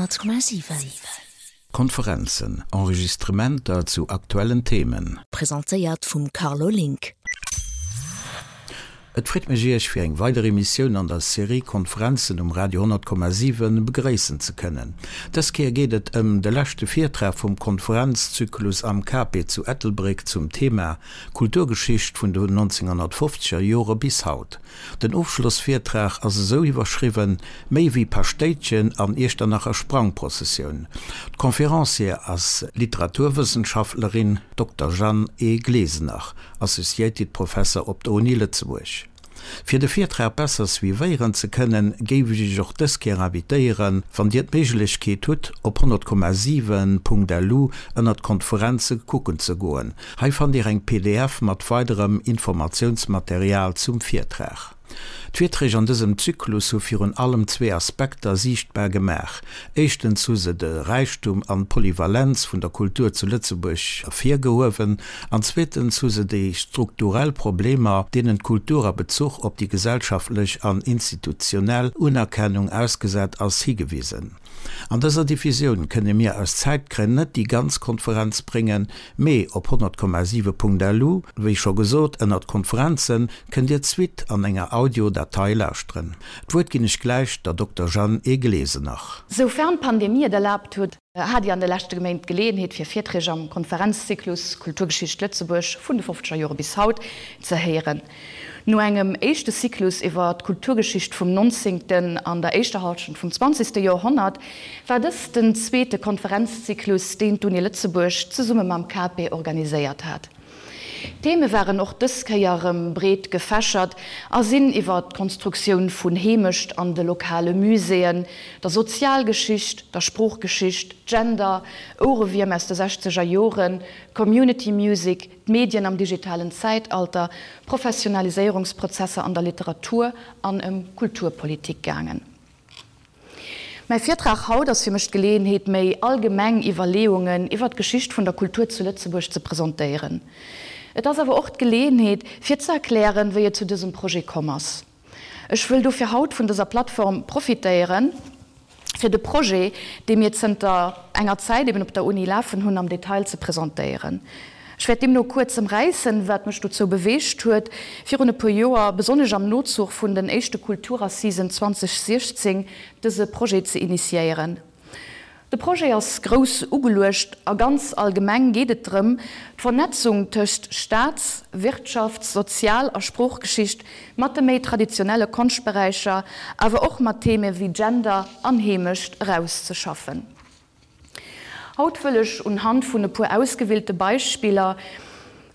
100,7. Konferenzen, Enregistrementer zu aktuellen Themen. Presentéiert vum Carlo Link. Et freet mech Iech fir eng weider Emissioun an der Serie Konferenzen um Radio 100,7 begréissen ze kënnen. Dës Kéier geet et ëm de leschte Virtrag vum Konferenzzyklus am Cape zu Ettelbréck zum Thema Kulturgeschicht vun de 1950er Jore bis haut. Den Ofschlossvirtrag ass esou iwwerschriwwen, Méi wéi Paschtéitchen an Iechternacher Sprangprozessioun. D'Conferencière ass Literaturwëssenschaftlerin Dokter Jeanne E. Glesener, Associated Professor op der Uni Lëtzebuerg. Fir de Virtrag besser suivéieren ze kënnen, géif ech Iech och dës Kéier invitéieren, wann Dir d'Méiglechkeet hutt, op 100,7.lu ënnert Konferenze kucken ze goen. Hei fannt Dir eng pdf mat weiderem Informatiounsmaterial zum Virtrag. D'Virträg an dësem Zyklus hu virun allem zwee Aspekter siichtbar gemaach, Éischtens hu se de Räichtum an d'Polyvalenz vun der Kultur zu Lëtzebuerg ervirgehuewen an zweetens hu se déi strukturell Problemer, deenen d'Kultur a Bezuch op déi gesellschaftlech an institutionell Unerkennung ausgesat ass, higewisen. An dëser Diffusioun kënne mir aus Zäitgrënn net déi ganz Konferenz bréngen, mee op 100,7.lu, wéi scho gesot, ënnert Konferenzen, kënnt Dir d'Suite an enger Audio-Datei lauschteren. D'Wuert ginn ech gläich der Dokter Jeanne E. Glesener. Soufern d'Pandemie et erlaabt huet, hat Dir an de leschte Méint d'Geleeënheet fir Virträg am Konferenzzyklus Kulturgeschicht Lëtzebuerg vun de fofzeger Jore bis haut ze héieren. No engem éischte Cyclus iwwer d'Kulturgeschicht vum nonzéngten an der éischter Hallschent vum zwanzegste Joerhonnert war dëst den zweete Konferenzzyklus, deen d'Uni Lëtzebuerg zesumme mam CAPE organiséiert hat. D'Theme waren och dës Kéier erëm breet gefächert a sinn iwwer d'Konstruktioun vun Heemecht an de lokale Muséeën, der Sozialgeschicht, der Sproochgeschicht, Gender, Ouerewierm aus de sechzeger Joren, Community Music, d'Medien am digitalen Zäitalter, Professionaliséierungsprozesser an der Literatur an ëm Kulturpolitik gaangen. Mäi Virtrag haut ass fir mech d'Geleeënheet, méi allgemeng Iwwerleeungen iwwer d'Geschicht vun der Kultur zu Lëtzebuerg ze presentéieren. Et ass awer och d'Geleeënheet, fir ze erklären, wéi et zu dësem Projet komm ass. Ech wëll dofir haut vun dëser Plattform profitéieren, fir de Projet, dee mir zënter enger Zäit eben op der Uni lafen hunn, am Detail ze presentéieren. Ech wäert deemno kuerz ëmräissen, wat mech dozou beweegt huet, virun e puer Joer, besonnesch am Nozuch vun den éischte Kulturassisen 2016, dëse Projet ze initiéieren. De Projet ass grouss ugeluecht a ganz allgemeng geet et drëm, d'Vernetzung tëscht Staats-, Wirtschafts-, Sozial a Sproochgeschicht mat de méi traditionelle Konschtberäicher, awer och mat Theme wéi Gender an Heemecht erauszeschaffen. Haut wëll ech unhand vun e puer ausgewielte Beispiller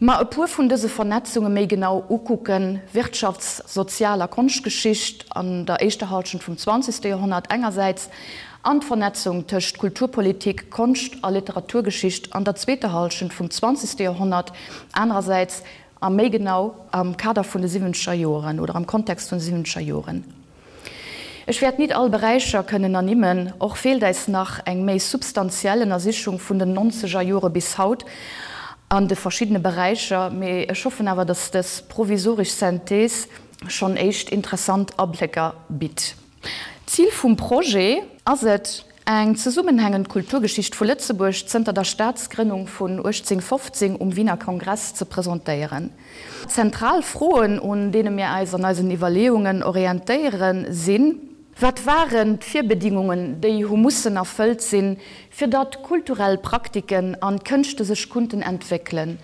Mer e puer vun dëse Vernetzunge méi genau ukucken, Wirtschafts-, Sozial a Konschtgeschicht an der éischter Halschent vum zwanzegste Joerhonnert engersäits an d'Vernetzung tëscht Kulturpolitik, Konscht a Literaturgeschicht an der zweeter Halschent vum zwanzegste Joerhonnert anerersäits a méi genau am Kader vun de siwwenzeger Joeren oder am Kontext vun de siwwenzeger Joeren. Ech wäert nit all Beräicher kënnen ernimmen, och feelt äis nach eng méi substantiell Ënnersichung vun den nonzeger Jore bis haut an de verschiddene Beräicher, mee ech hoffen awer, dass dës provisorisch Synthese schonn éischt interessant Ablécker bitt. Zil vum Projet ass et, eng zesummenhängend Kulturgeschicht vu Lëtzebuerg zënter der Staatsgrënnung vun 1815 um Wiener Kongress ze presentéieren. Zentral Froen, un deene mir äis an eisen Iwwerleeungen orientéieren, sinn, Wat waren d'Virbedingungen, déi hu mussen erfëllt sinn, fir datt kulturell Praktiken an Kënschte sech kunnten entwéckelen?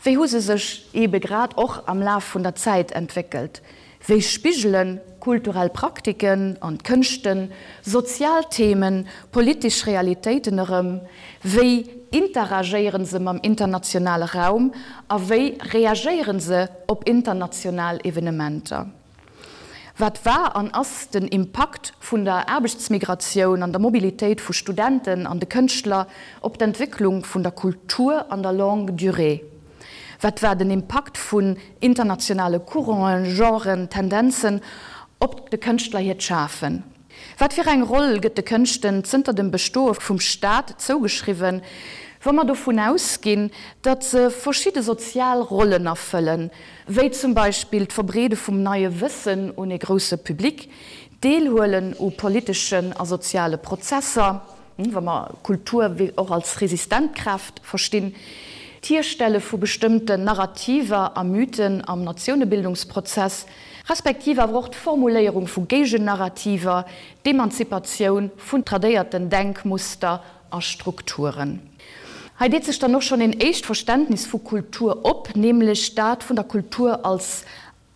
Wéi hu se sech eebe grad och am Laf vun der Zäit entwéckelt? Wéi spigele kulturell Praktiken an Kënschten sozial Themen, politesch Realitéiten erëm? Wéi interagéiere se mam internationale Raum a wéi reagéiere se op international Evenementer? Wat war an ass den Impakt vun der Aarbechtsmigratioun an der Mobilitéit vu Studenten an de Kënschtler op d'Entwécklung vun der Kultur an der Longue durée? Wat war den Impakt vun internationale Couranten, Genren, Tendenzen op de Kënschtler hiert Schafen? Wat fir eng Roll gëtt de Kënschten zënter dem Bestoe vum Staat zougeschriwwen, wa mer dovun ausginn, datt se verschidde sozial Rollen erfëllen, wéi zum Beispill d'Verbreede vum neie Wëssen un ee grousse Public, d'Deelhuelen u politeschen a soziale Prozesser? wa mer Kultur och als resistent Kraaft verstinn, d'Hierstelle vu bestëmmten Narrativer a Mythen am Natiounebildungsprozess, respektiv awer och d'Formuléierung vu Géigennarrativer, d'Emanzipatioun vun tradéierten Denkmuster a Strukturen. Hei deet sech dann och schonn een éischt Verständnis vu Kultur op, nämlech dat vun der Kultur als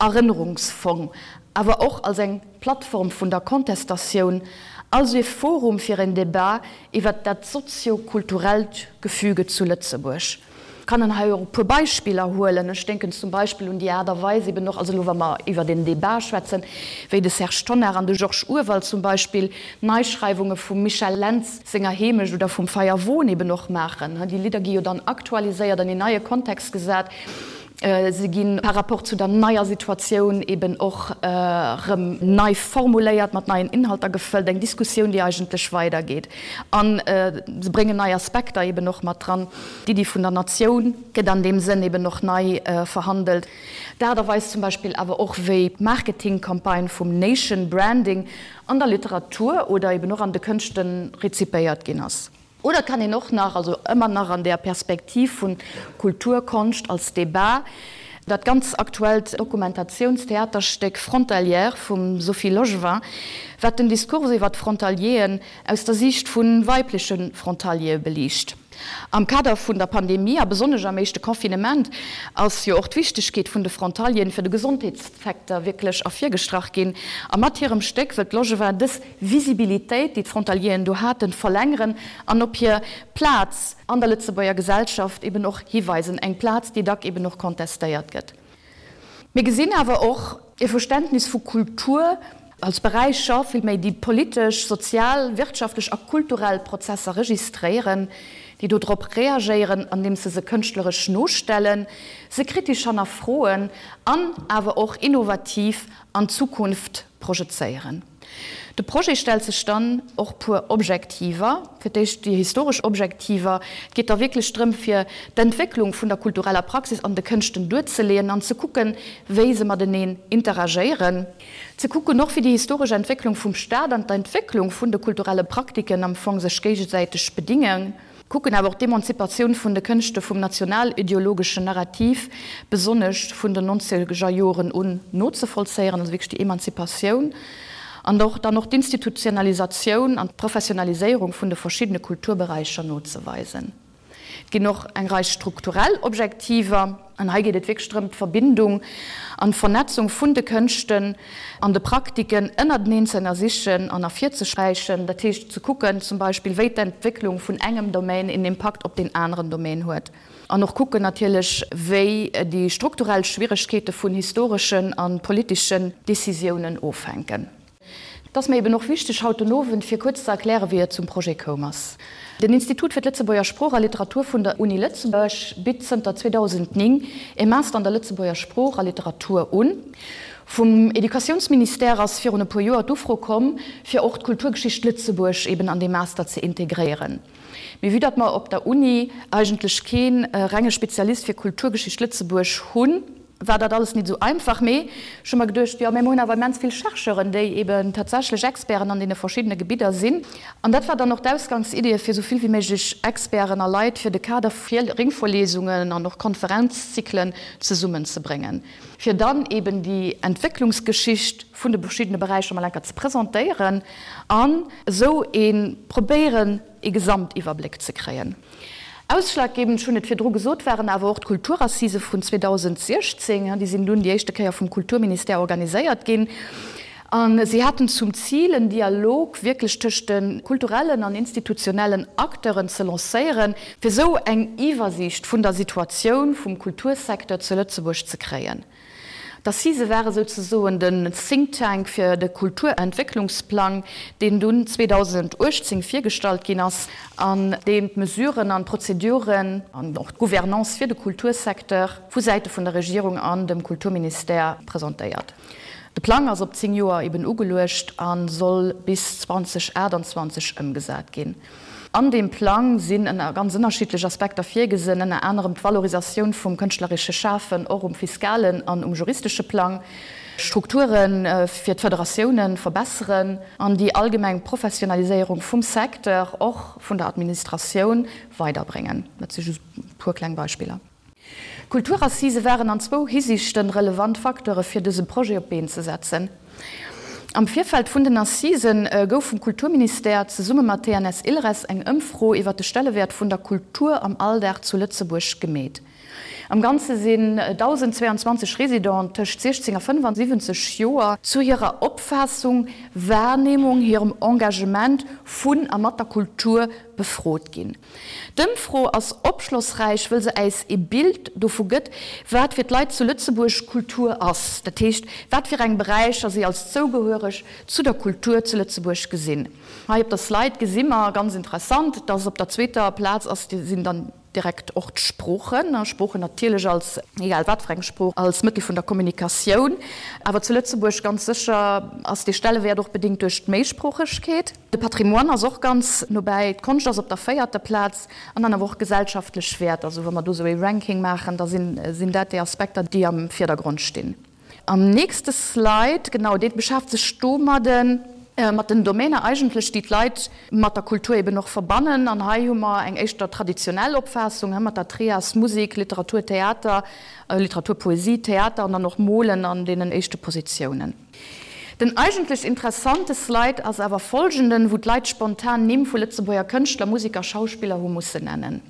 Erënnerungsfong, awer och als eng Plattform vun der Kontestatioun, also ee Forum fir en Debat iwwert dat sozio-kulturellt Gefüge zu Lëtzebuerg. Kann en hei och e puer Beispiller huelen. Ech denken zum Beispill un déi Aart a Weis eben och, also elo wa mer iwwert een Debat schwätzen, wéi de Serge Tonnar an de Georges Urwald zum Beispill Neischreiwunge vum Michel Lentz senger Heemecht oder vum Feierwon eben och maachen. Déi Lidder gi jo dann aktualiséiert, an een neie Kontext gesat. Se gi par rapport zu der neier Situatioun eben och erëm nei formuléiert, mat neien Inhalter gefëllt, eng Diskussioun, déi eigentlech weidergeet. A se bréngen nei Aspekter eben och mat dran. D'Iddi vun der Natioun gëtt an deem Sënn eben och nei verhandelt. D'Aart a Weis zum Beispill awer och, wéi d'Marketingcampagne vum Nation Branding an der Literatur oder eben och an de Kënschte rezipéiert ginn ass. Oder et kann een och nach, also ëmmer nach an där Perspektiv vun Kultur, Konscht als Debat, dat ganz aktuellt Dokumentatiounstheaterstéck Frontalière vum Sophie Logevin, wat den Diskurs iwwer d'Frontalieren aus der Siicht vu weibleche Frontaliere beliicht. Am Kader vun der Pandemie a besonnesch am éischte Confinement ass jo och d'Wichtegkeet vun de Frontalieren fir de Gesondheetssecteur wierklech ervirgestrach ginn. A mat hirem Stéck wëllt d'Logevin dës Visibilitéit, déi d'Frontalieren do haten, verlängeren an op hir Plaz an der Lëtzebuerger Gesellschaft eben och hiweisen, eng Plaz, déi dack eben och contestéiert gëtt. Mir gesinn awer och e Verständnis vu Kultur als Beräicher, villméi, déi politesch, sozial, wirtschaftlech a kulturell Prozesser registréieren, déi dodrop reagéieren, andeems se se kënschtleresch nostellen, se kritesch hannerfroen an awer och innovativ an d'Zukunft projezéieren. De Projet stellt sech dann och puer Objektiver. Fir d'éischt déi historesch Objektiver. Et geet da wierklech drëm, fir d'Entwécklung vun der kultureller Praxis an de Kënschten duerzeleeën an ze kucken, wéi se mateneen interagéieren. Ze kucken och, wéi déi historesch Entwécklung vum Staat an d'Entwécklung vun de kulturelle Praktiken am Fong sech géigesäiteg bedingen. Kucken awer och d'Emanzipatioun vun de Kënschte vum nationalideologeschen Narrativ, besonnesch vun den nonzeger Joren un, nozevollzéieren, also wierklech déi Emanzipatioun an och dann och d'Institutionalisatioun an d'Professionaliséierung vun de verschiddene Kulturberäicher nozeweisen. Et ginn och eng Rei strukturell Objektiver. An hei geet et wierklech drëm, d'Verbindung an d'Vernetzung vun de Kënschten an de Praktiken ënnerteneen ze ënnersichen an ervirzesträichen. Dat heescht ze kucken zum Beispill, wéi d'Entwécklung vun engem Domaine een Impakt op deen aneren Domaine huet. An och kucken natierlech, wéi déi strukturell Schwieregkeete vun historeschen a politeschen Decisiounen ofhänken. Et ass mir eben och wichteg haut den Owend, fir kuerz ze erklären, wéi et zum Projet koum ass. Den Institut fir d'Lëtzebuerger Sprooch a Literatur vun der Uni Lëtzebuerg bitt zënter 2009 e Master an der Lëtzebuerger Sprooch a Literatur un. Vum Educatiounsministère ass virun e puer Joer d'Ufro komm, fir och d'Kulturgeschicht Lëtzebuerg eben an dee Master ze integréieren. Mee vue datt mer op der Uni eigentlech kee renge Spezialist fir Kulturgeschicht Lëtzebuerg hunn, war dat alles nit esou einfach. Mee ech hu mer geduecht, jo, mä mer hunn awer immens vill Chercheuren, déi eben tatsächlech Experten an deene verschiddene Gebidder sinn. An dat war dann och d'Ausgangsidee, fir esou vill wéi méiglech Experten a Leit fir de Kader vu Ringvorlesungen an och Konferenzzyklen zesummenzebréngen, fir dann eben déi Entwécklungsgeschicht vun de verschiddene Beräicher mol enker ze presentéieren an esou ee probéieren, ee Gesamtiwwerbléck ze kréien. Ausschlaggebend, ech hunn et virdru gesot, waren awer och d'Kulturassisë vun 2016. Déi sinn dunn déi éischte Kéier vum Kulturministère organiséiert ginn a si haten zum Zil, en Dialog wierklech tëscht de kulturellen an institutionellen Acteuren ze lancéieren, fir esou eng Iwwersiicht vun der Situatioun vum Kultursecteur zu Lëtzebuerg ze kréien. D'Assisë ware souzesoen den Think Tank fir de Kulturentwécklungsplang, deen dunn 2018 virgestallt ginn ass an deen d'Mesuren an d'Prozeduren an och d'Gouvernance fir de Kultursecteur vu Säite vun der Regierung an dem Kulturministère presentéiert. De Plang ass op 10 Joer eben ugeluecht a soll bis 2028 ëmgesat ginn. An deem Plang sinn ënner ganz ënnerschiddlech Aspekter virgesinn, ënner anerem d'Valorisatioun vum kënschtleresche Schafen och um fiskalen an um juristesche Plang, Strukture fir d'Federatioune verbesseren an déi allgemeng Professionaliséierung vum Secteur, och vun der Administratioun, weiderbréngen. Dat si just e puer kleng Beispiller. D'Kulturassisë waren an zwou Hisiichten relevant Facteure fir dëse Projet op d'Been ze setzen. Am Virfeld vun den Assisen gouf vum Kulturministère zesumme mat TNS Ilres eng Ëmfro iwwer de Stellewäert vun der Kultur am Alldag zu Lëtzebuerg gemeet. Am Ganze sinn 1.022 Residenten tëscht 16 a 75 Joer zu hirer Opfaassung, Wahrnehmung, hirem Engagement vun a mat der Kultur befrot ginn. D'Ëmfro ass opschlossräich, wëll se äis ee Bild dovu gëtt, wat fir d'Leit zu Lëtzebuerg Kultur ass, dat heescht, wat fir eng Beräicher si als zougehuereg zu der Kultur zu Lëtzebuerg gesinn. Hei op der Slide gesi mer, ganz interessant, dass op der zweeter Plaz ass, sinn dann direkt och d'Sproochen, Sproochen natierlech als, egal wat fir eng Sprooch, als Mëttel vun der Kommunikatioun, awer zu Lëtzebuerg ganz sécher ass dee Stellewäert och bedéngt duerch d'Méisproochegkeet. De Patrimoine ass och ganz no bäi, d'Konscht ass op der véierter Plaz an dann awer och gesellschaftlech Wäerter. Also wa mer do esou ee Ranking maachen, da sinn dat déi Aspekter, déi am Virdergrond stinn. Am nächste Slide, genau, dee beschäft sech domadden, mat den Domäner eigentlech, déi d'Leit mat der Kultur eben och verbannen. An hei hu mer eng éischter traditionell Opfaassung, mat der Trias Musek, Literatur, Theater, Literatur, Poesie, Theater an dann och Molen an deenen éischte Positiounen. Den eigentlech interessante Slide ass awer folgenden, wou d'Leit spontan Nimm vu Lëtzebuerger Kënschtler, Musiker, Schauspiller hu mussen nennen.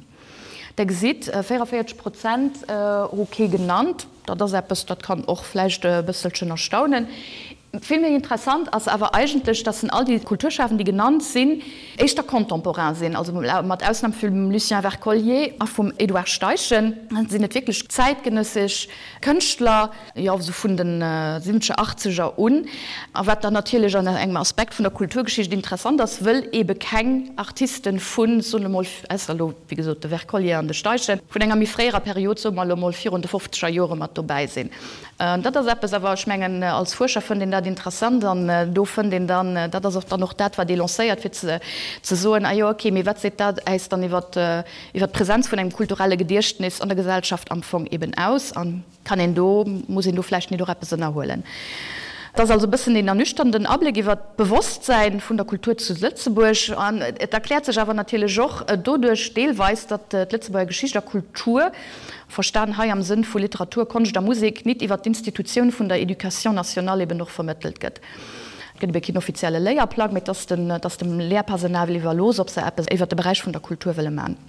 Der gesitt, 44 Prozent hu kee genannt. Dat ass eppes, dat kann och vläicht e bësselchen erstaunen. Vill méi interessant ass awer eigentlech, dass en all déi Kulturschafend, déi genannt sinn, éischter contemporain sinn, also mat Ausnam vum Lucien Wercollier a vum Edouard Steichen sinn et wierklech zäitgenëssesch Kënschtler, jo esou vun de siwwenzeger, achtzeger un, a wat dann natierlech an engem Aspekt vun der Kulturgeschicht interessant ass, wëll eebe keng Artisten vun, soen elo mol, ausser elo wéi gesot de Wercollier an de Steichen, vun enger méi fréierer Period, soe mer elo mol virun de fofzeger Jore mat dobäi sinn. Dat ass eppes awer, ech mengen, als Fuerscher fënnt een dat interessant an do fënnt een dann, dat ass och dann och dat, wat ee lancéiert, fir ze soen, ah jo, okay, mee wat seet dat äis dann iwwert d'Präsenz vun engem kulturelle Gediechtnis an der Gesellschaft am Fong eeben aus? An Kann een do, muss een do vläicht nit och eppes ënnerhuelen? Et ass also e bëssen een ernüchternden Abléck iwwer d'Bewosstsäin vun der Kultur zu Lëtzebuerg. An et erkläert sech awer natierlech och doduerch deelweis, datt d'Lëtzebuerger Geschicht a Kultur, verstan hei am Sënn vu Literatur, Konscht a Musek, nit iwwer d'Institutioun vun der Éducation nationale eben och vermëttelt gëtt. Et gëtt ebe keen offizielle Léierplang, mee et ass dem Lehrpersonal iwwerlooss, ob se eppes iwwer de Beräich vun der Kultur wëlle man.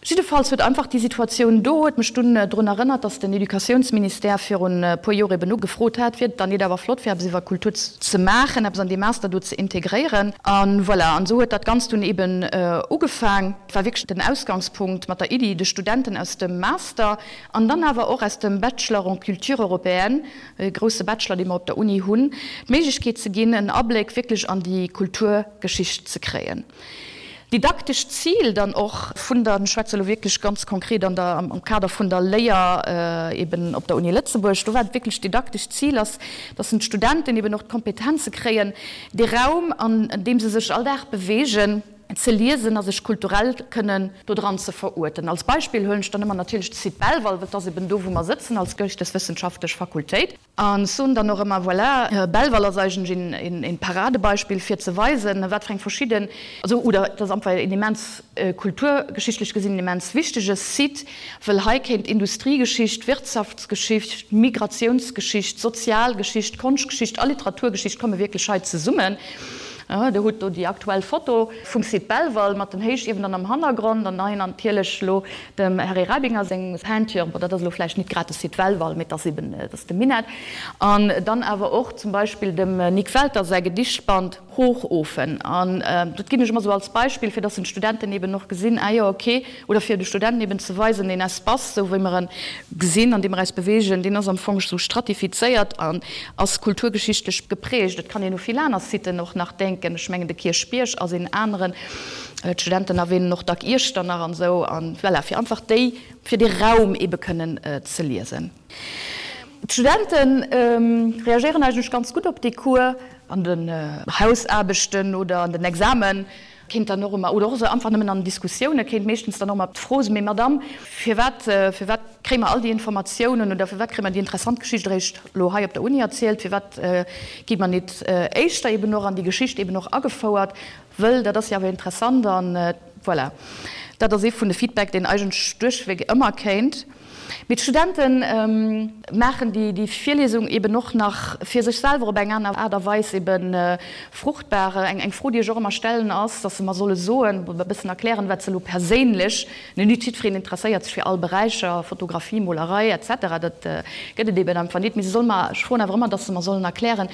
Jiddefalls huet einfach déi Situatioun do huet mech dunn drun erënnert, datt den Educatiounsministère virun e puer Joer eben ugefrot hat, wier et dann nit awer flott fir eppes iwwer Kultur ze maachen, eppes an dee Master do ze integréieren. A voilà, an esou huet dat Ganzt dunn eben ugefaang. Et war wierklech den Ausgangspunkt mat der Iddi, de Studenten aus dem Master an dann awer och aus dem Bachelor en culture européenne, e grousse Bachelor, dee mer op der Uni hunn, d'Méiglechkeet ze ginn, en Abléck wierklech an déi Kulturgeschicht ze kréien. Didaktescht Zil dann och vun der, ech schwätze elo wierklech ganz konkret an der, am Kader vun der Léier eben op der Uni Lëtzebuerg, do war et wierklech d'didaktescht Zil ass, dass d'Studenten eben och d'Kompetenze kréien, dee Raum, an deem se sech all Dag bewegen, ze liesen a sech kulturell kënnen dodran ze veruerten. Als Beispill huelen ech dann ëmmer natierlech de Site Belval, well et ass eben do, wou mer sëtzen als geeschteswëssenschaftlech Fakultéit. An ech soen dann och ëmmer, voilà, Belval ass eigentlech een Paradebeispill fir ze weisen, wat fir eng verschidden, also oder et ass einfach een immens kulturgeschichtlech gesinn en immens wichtege Site, wëll hei kéint Industriegeschicht, Wirtschaftsgeschicht, Migratiounsgeschicht, Sozialgeschicht, Konschtgeschicht a Literaturgeschicht komme wierklech hei zesummen. Der hutt do déi aktuell Foto vum Site Belval mat den Héichiewen dann am Hannergrond an hei natierlech elo Dem Harry Rabinger seng Peinture, bon dat ass elo vläicht nit grad de Site Belval, mee et ass eben, et ass de Minett. An dann awer och zum Beispill dem Nik Welter säi Gedichtband Hochofen. An dat ginn ech ëmmer esou als Beispill, fir datt den Studenten eben och gesinn, ah jo, okay, oder fir de Studenten eben ze weisen, deen Espace, esou wéi mer en gesinn, an deem mer eis beweegen, deen ass am Fong esou stratifizéiert an ass kulturgeschichtlech geprägt. Et kann een u vill aner Siten och nach denken, ech mengen de Kierchbierg ass een aneren. D'Studenten erwähnen och dack Iechternach an esou, an voilà, fir einfach déi, fir dee Raum ebe kënnen ze liesen. D'Studente reagéieren eigentlech ganz gutt op dee Cours. An den Hausaarbechten oder an den Examen. Kéint dann och ëmmer, oder och esou einfach nëmmen an Diskussioune kéint meeschtens dann och ëmmer d'Fro sinn, Mee Madamm, firwat, firwat kréie mer all déi Informatiounen oder firwat kréie mer déi interessant Geschicht eréischt elo hei op der Uni erzielt? Firwat gi mer nit éischter eben och an déi Geschicht eben och agefouert? Wëll dat ass jo awer interessant an voilà. Dat ass ee vun de Feedback, deen eigentlech duerchweg ëmmer kéint. Mee d'Studente maachen déi Virliesung eben och nach fir sech selwer op eng aner Aart a Weis ebe fruchtbar. Eng Fro, déi ech och ëmmer stellen, ass, datt se mer solle soen, e bëssen erklären, wat se elo perséinlech, net jiddwereen interesséiert sech fir all Beräicher, Fotografie, Molerei, etc. Dat gëtt et eben einfach nit, mee se solle mer, ech froen awer ëmmer, datt se mer sollen erklären,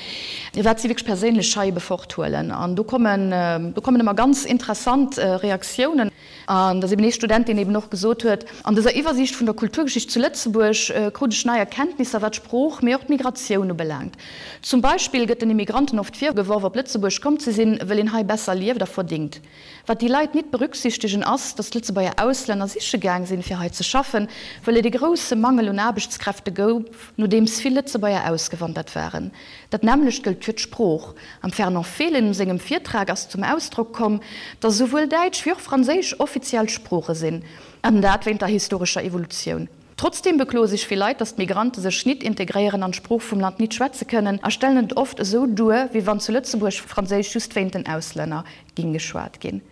wat si wierklech perséinlech hei ebe forthuelen. An do kommen, do kommen ëmmer ganz interessant Reaktiounen. An et ass eben ee Student, deen eben och gesot huet, An dëser Iwwersiicht vun der Kulturgeschicht zu Lëtzebuerg krut ech nei Erkenntnisser, wat d'Sprooch, mee och d'Migratioun ubelaangt. Zum Beispill gëtt den Immigranten oft virgeworf, op Lëtzebuerg komm ze sinn, wëll een hei besser lieft a verdingt. Wat déi Leit nit berücksichtegen ass, datt d'Lëtzebuerger Auslänner siche gaang sinn, fir hei ze schaffen, wëll et ee grousse Mangel un Aarbechtskräfte gouf, nodeems vill Lëtzebuerger ausgewandert waren. Dat nämmlecht gëllt fir d'Sprooch. Am Fernand Fehlen sengem Virtrag ass zum Ausdrock komm, datt esouwuel Däitsch wéi och Franséisch offiziell Sprooche sinn, an dat wéint der historescher Evolutioun. Trotzdeem bekloe sech vill Leit, datt d'Migrante sech nit integréieren an d'Sprooch vum Land nit schwätze kënnen a stellen et oft esou duer, wéi wann zu Lëtzebuerg Franséisch just wéint den Auslänner ging geschwat ginn.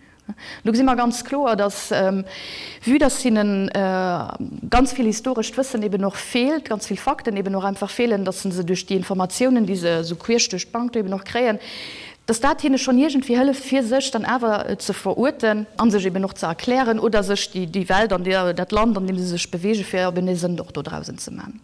Do gesi mer ganz kloer, dass, vue dass hinne ganz vill historescht Wëssen eben och feelt, ganz vill Fakten eben och einfach feelen, dass se duerch déi Informatiounen, déi se esou queesch duerch d'Bank do eben och kréien, dass dat hinne schonn iergendwéi hëlleft, fir sech dann awer ze veruerten a sech eben och ze erklären oder sech déi Welt an dat Land, an deem se sech bewegen, fir eben ee Sënn och dodrausen ze man.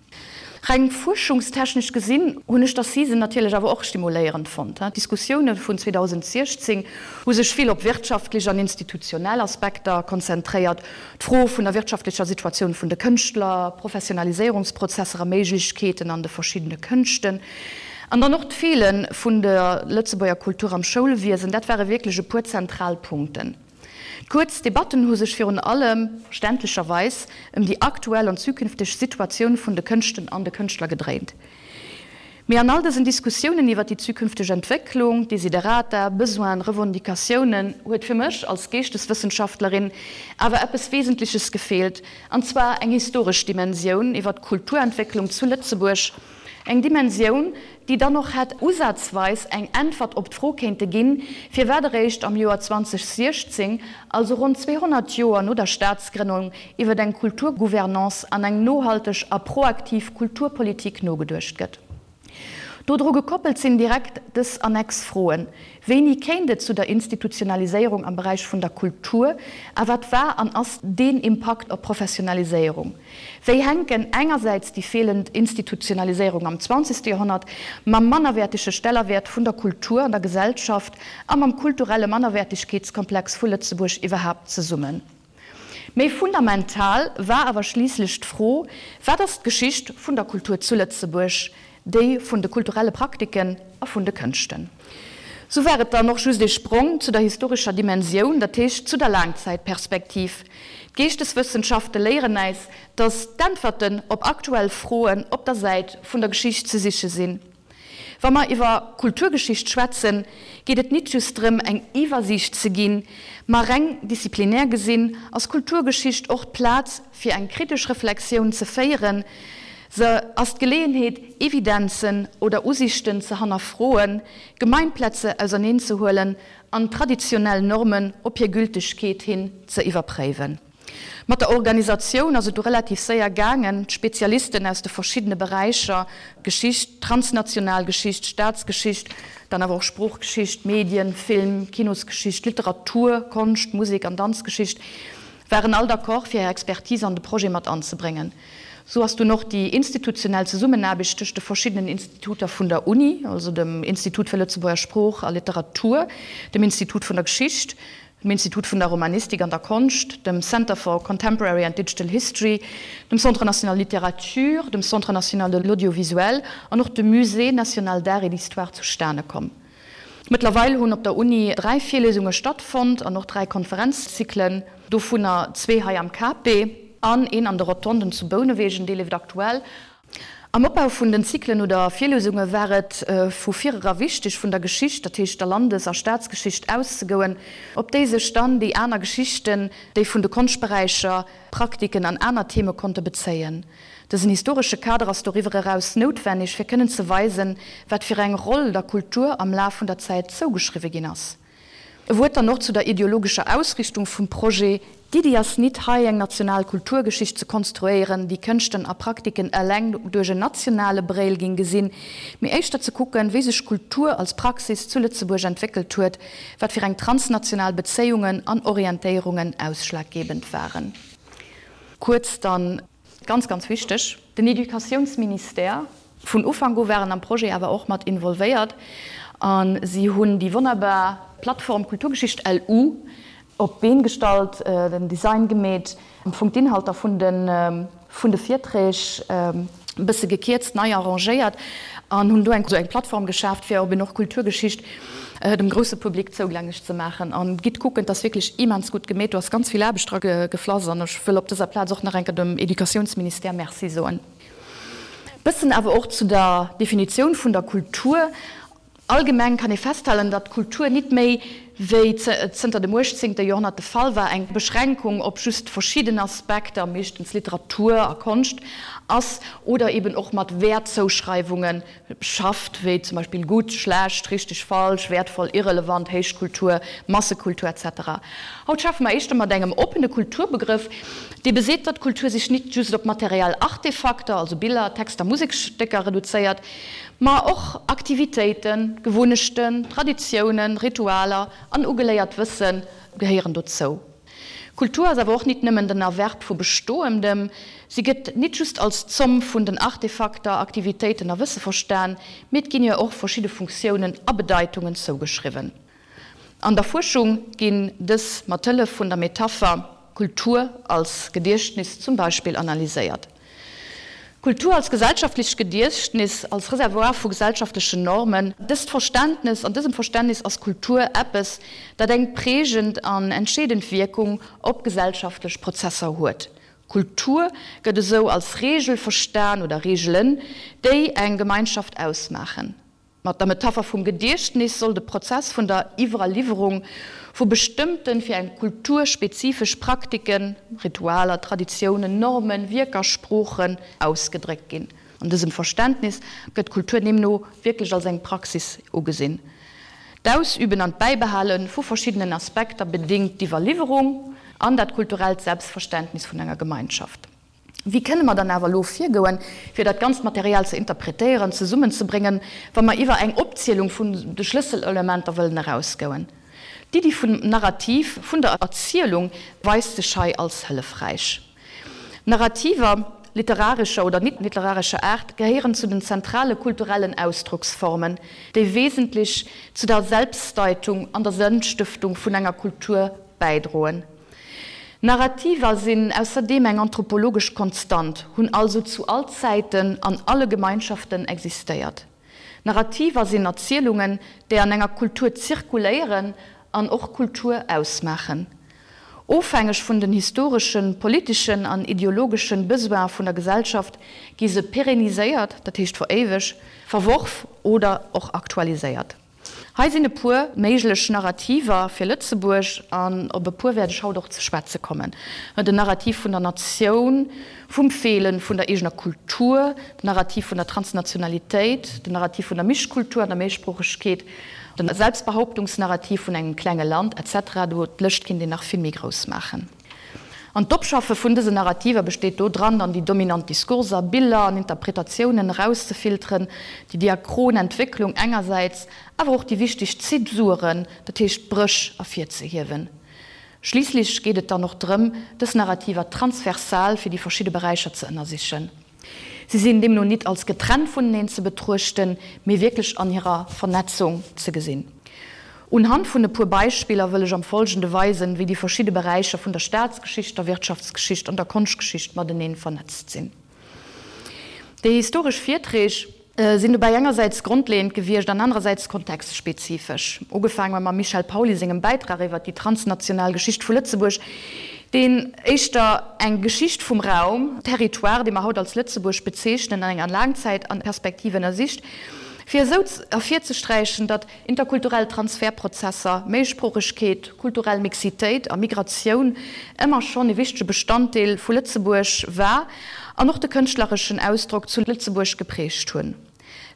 Reng fuerschungstechnesch gesinn hunn ech d'Assisen natierlech awer och stimuléierend fonnt. D'Diskussioune vun 2016 hu sech vill op wirtschaftlech an institutionell Aspekter konzentréiert, d'Fro vun der wirtschaftlecher Situatioun vun de Kënschtler, Professionaliséierungsprozesser a Méiglechkeeten an de verschiddene Kënschten an dann och d'Feele vun der Lëtzebuerger Kultur am Schoulwiesen, dat ware wierklech e puer zentral Punkten. D'kuerz Debatten hu sech virun allem, verständlecherweis, ëm déi aktuell an zukünfteg Situatioun vun de Kënschten an de Kënschtler gedréint. Mee an all dësen Diskussiounen iwwer déi zukünfteg Entwécklung, Desiderata, Besoinen, Revendicatiounen, huet fir mech als Geeschteswëssenschaftlerin awer eppes Wesentleches gefeelt, an zwar eng historesch Dimensioun iwwer d'Kulturentwécklung zu Lëtzebuerg, Eng Dimensioun, déi dann och hätt usazweis eng Äntwert op d'Fro kéinte ginn, firwat eréischt am Joer 2016, also ronn 200 Joer no der Staatsgrënnung, iwwer eng Kulturgouvernance an eng nohalteg a proaktiv Kulturpolitik nogeduecht gëtt. Dodru gekoppelt sinn direkt dës Annex-Froen, Wéini kéint et zu der Institutionaliséierung am Beräich vun der Kultur a wat war an ass deen Impakt op d'Professionaliséierung? Wéi hänken engersäits déi feelend Institutionaliséierung am zwanzegste Joerhonnert mam mannerwäertege Stellerwäert vun der Kultur an der Gesellschaft a mam kulturelle Mannerwäertegkeetskomplex vu Lëtzebuerg iwwerhaapt zesummen? Méi fundamental war awer schliisslech d'Fro, Wat ass d'Geschicht vun der Kultur zu Lëtzebuerg, déi vun de kulturelle Praktiken a vun de Kënschten? Sou war et dann och just ee Sprong zu der historescher Dimensioun, dat heescht zu der Laangzäitperspektiv. D'Geeschteswëssenschafte léieren äis, datt d'Äntwerten op aktuell Froen op der Säit vun der Geschicht ze siche sinn. Wa mer iwwer Kulturgeschicht schwätzen, geet et nit just drëm, eng Iwwersiicht ze ginn, ma reng disziplinär gesinn ass Kulturgeschicht och d'Plaz, fir eng kritesch Reflexioun ze féieren. Se ass d'Geleeënheet, Evidenzen oder Usiichten ze hannerfroen, Gemeinplätze auserneenzehuelen an traditionell Normen op hir Gültegkeet hin ze iwwerpréiwen. Mat der Organisatioun ass et du relativ séier gaangen, d'Spezialisten aus de verschiddene Beräicher, Geschicht, transnational Geschicht, Staatsgeschicht, dann awer och Sproochgeschicht, Medien, Film, Kinosgeschicht, Literatur, Konscht, Musek an Danzgeschicht, waren all d'accord fir hir Expertise an de Projet mat anzebréngen. Sou ass dunn och déi institutionell Zesummenaarbecht tëscht de verschiddenen Instituter vun der Uni, also dem Institut fir Lëtzebuerger Sprooch a Literatur, dem Institut vun der Geschicht, dem Institut vun der Romanistik an der Konscht, dem Center for Contemporary and Digital History, dem Centre national de littérature, dem Centre national de l'audiovisuel an och dem Musée national d'art et d'histoire zustane komm. Mëttlerweil hunn op der Uni 3 Virliesunge stattfonnt an och 3 Konferenzzyklen, dovunner zwee hei am KP an een an de Rotonden zu Bounewegen, dee leeft aktuell. Am Opbau vun den Zyklen oder Virliesunge war et vu virera wichteg, vun der Geschicht, dat heescht der Landes a Staatsgeschicht, auszegoen, op déi sech dann déi aner Geschichten, déi vun de Konschtberäicher, Praktiken an aner Theme konnte bezéien. Dësen historesche Kader ass doriwwer eraus noutwenneg, fir kënnen ze weisen, wat fir eng Roll der Kultur am Laf vun der Zäit zougeschriwwe ginn ass. E Wuert dann och zu der ideologescher Ausrichtung vum Projet, D'Iddi ass nit, hei eng national Kulturgeschicht ze konstruéieren, déi Kënschten a Praktiken eleng duerch en nationale Bréil ging gesinn, mee éischter ze kucken, wéi sech Kultur als Praxis zu Lëtzebuerg entwéckelt huet, wat fir eng transnational Bezéiungen an Orientéierungen ausschlaggebend waren. Kuerz dann. Ganz, ganz wichteg, den Educatiounsministère. Vun Ufank u waren am Projet awer och mat involvéiert a si hunn déi wonnerbar Plattform Kulturgeschicht LU op d'Been gestallt, den Design gemeet, am Fong d'Inhalter vun de vun de Virträg e bësse gekierzt, nei arrangéiert an hunn do eng esou eng Plattform geschaaft, fir op een och Kulturgeschicht dem grousse Public zougänglech ze maachen. An gitt kucken, et ass wierklech immens gutt gemeet, do ass ganz vill Aarbecht dra geflass an ech wëll op dëser Plaz och nach eng Kéier dem Educatiounsministère Merci soen. Bëssen awer och zu der Definitioun vun der Kultur. Allgemeng kann ee festhalen, datt Kultur nit méi, wéi zënter dem uechtzéngte Joerhonnert de Fall war, eng Beschränkung op just verschidden Aspekter, meeschtens Literatur a Konscht, ass oder eben och mat Wäertzouschreiwunge schafft, wéi zum Beispill gutt, schlecht, richteg, falsch, wäertvoll, irrelevant, Héichkultur, Massekultur, etc. Haut schaffe mer éischter mat engem oppene Kulturbegrëff, dee beseet, datt Kultur sech nit just op materiell Artefakter, also Biller, Texter, Museksstécker, reduzéiert, ma och Aktivitéiten, Gewunnechten, Traditiounen, Ritualer an ugeléiert Wësse gehéieren dozou. Kultur ass awer och nit nëmmen den Erwerb vu Bestoendem, si gëtt nit just als d'Zomm vun den Artefakter, Aktivitéiten a Wësse verstan, mee et ginn hir och verschidde Funktiounen a Bedeitungen zougeschriwwen. An der Fuerschung ginn dës mat Hëllef vun der Metapher Kultur als Gediechtnis zum Beispill analyséiert. Kultur als gesellschaftlicht Gediechtnis, als Reservoir vu gesellschaftlechen Normen. Dëst Verständnes, an dësem Verständnis ass Kultur eppes, dat eng prägend an entscheedend Wierkung op gesellschaftlech Prozesser huet. Kultur gëtt esou als Regel verstan oder Regelen, déi eng Gemeinschaft ausmaachen. Mat der Metapher vum Gediechtnis soll de Prozess vun der Iwwerliwwerung vu bestëmmten, fir eng Kultur spezifesch Praktiken, Ritualer, Traditiounen, Normen, Wierker, Sproochen ausgedréckt ginn. An dësem Verständnis gëtt Kultur deemno wierklech als eng Praxis ugesinn. D'Ausüben an d'Bäibehale vu verschiddenen Aspekter bedéngt d'Iwwerliwwerung an dat kulturellt Selbstverständnis vun enger Gemeinschaft. Wéi kënne mer dann awer elo virgoen, fir dat ganzt Material ze interpretéieren, zesummenzebréngen, wa mer iwwer eng Opzielung vun de Schlësselelementer wëllen erausgoen? D'Iddi vum Narrativ, vun der Erzielung weist sech hei als hëllefräich. Narrativer, literarescher oder nit-literarescher Aart, gehéieren zu den zentrale kulturellen Ausdrocksformen, déi wesentlech zu der Selbstdeitung an der Sënnstëftung vun enger Kultur bäidroen. Narrativer sinn ausserdeem eng anthropologesch Konstant, hunn also zu all Zäiten an alle Gemeinschaften existéiert. Narrativer sinn Erzielungen, déi an enger Kultur zirkuléieren an och Kultur ausmaachen. Ofhängeg vun den historeschen, politeschen an ideologeschen Besoine vun der Gesellschaft gi se pérenniséiert, dat heescht veréiweg, verworf oder och aktualiséiert. Hei sinn e puer méiglech Narrativer fir Lëtzebuerg, an op e puer wäert ech haut och ze schwätze kommen, Den Narrativ vun der Natioun, vum Feelen vun der eegener Kultur, den Narrativ vun der Transnationalitéit, den Narrativ vun der Mischkultur an der Méisproochegkeet, den Selbstbehauptungsnarrativ vun engem klenge Land, etc. Do d'Lëscht kinnt een nach vill méi grouss maachen. An d'Opschaffe vun dësen Narrativer besteet do dran, dann déi dominant Diskurser, Biller an Interpretatiounen erauszefilteren, déi diachron Entwécklung engersäits, awer och déi wichteg Zäsuren, dat heescht d'Bréch, ervirzehiewen. Schliisslech geet et dann och drëm, dës Narrativer transversal fir déi verschidde Beräicher ze ënnersichen. Si sinn deemno nit als getrennt vuneneen ze betruechten, mee wierklech an hirer Vernetzung ze gesinn. Unhand vun e puer Beispiller wëll ech am Folgende weisen, wéi déi verschidde Beräicher vun der Staatsgeschicht, der Wirtschaftsgeschicht an der Konschtgeschicht mateneen vernetzt sinn. Déi historesch Virträg sinn dobäi engersäits grondleeënd gewiescht an anerersäits kontextspezifesch. Ugefaange mam Michel Pauly sengem Bäitrag iwwer déi transnational Geschicht vu Lëtzebuerg. Deen éischter eng Geschicht vum Raum, Territoire, dee mer haut als Lëtzebuerg bezeechnen, an enger Laangzäitperspektiv ënnersicht, fir esou ervirzesträichen, datt interkulturell Transfertprozesser, Méisproochegkeet, kulturell Mixitéit a Migratioun ëmmer schonn e wichtege Bestanddeel vu Lëtzebuerg war an och de kënschtlereschen Ausdrock zu Lëtzebuerg geprägt hunn.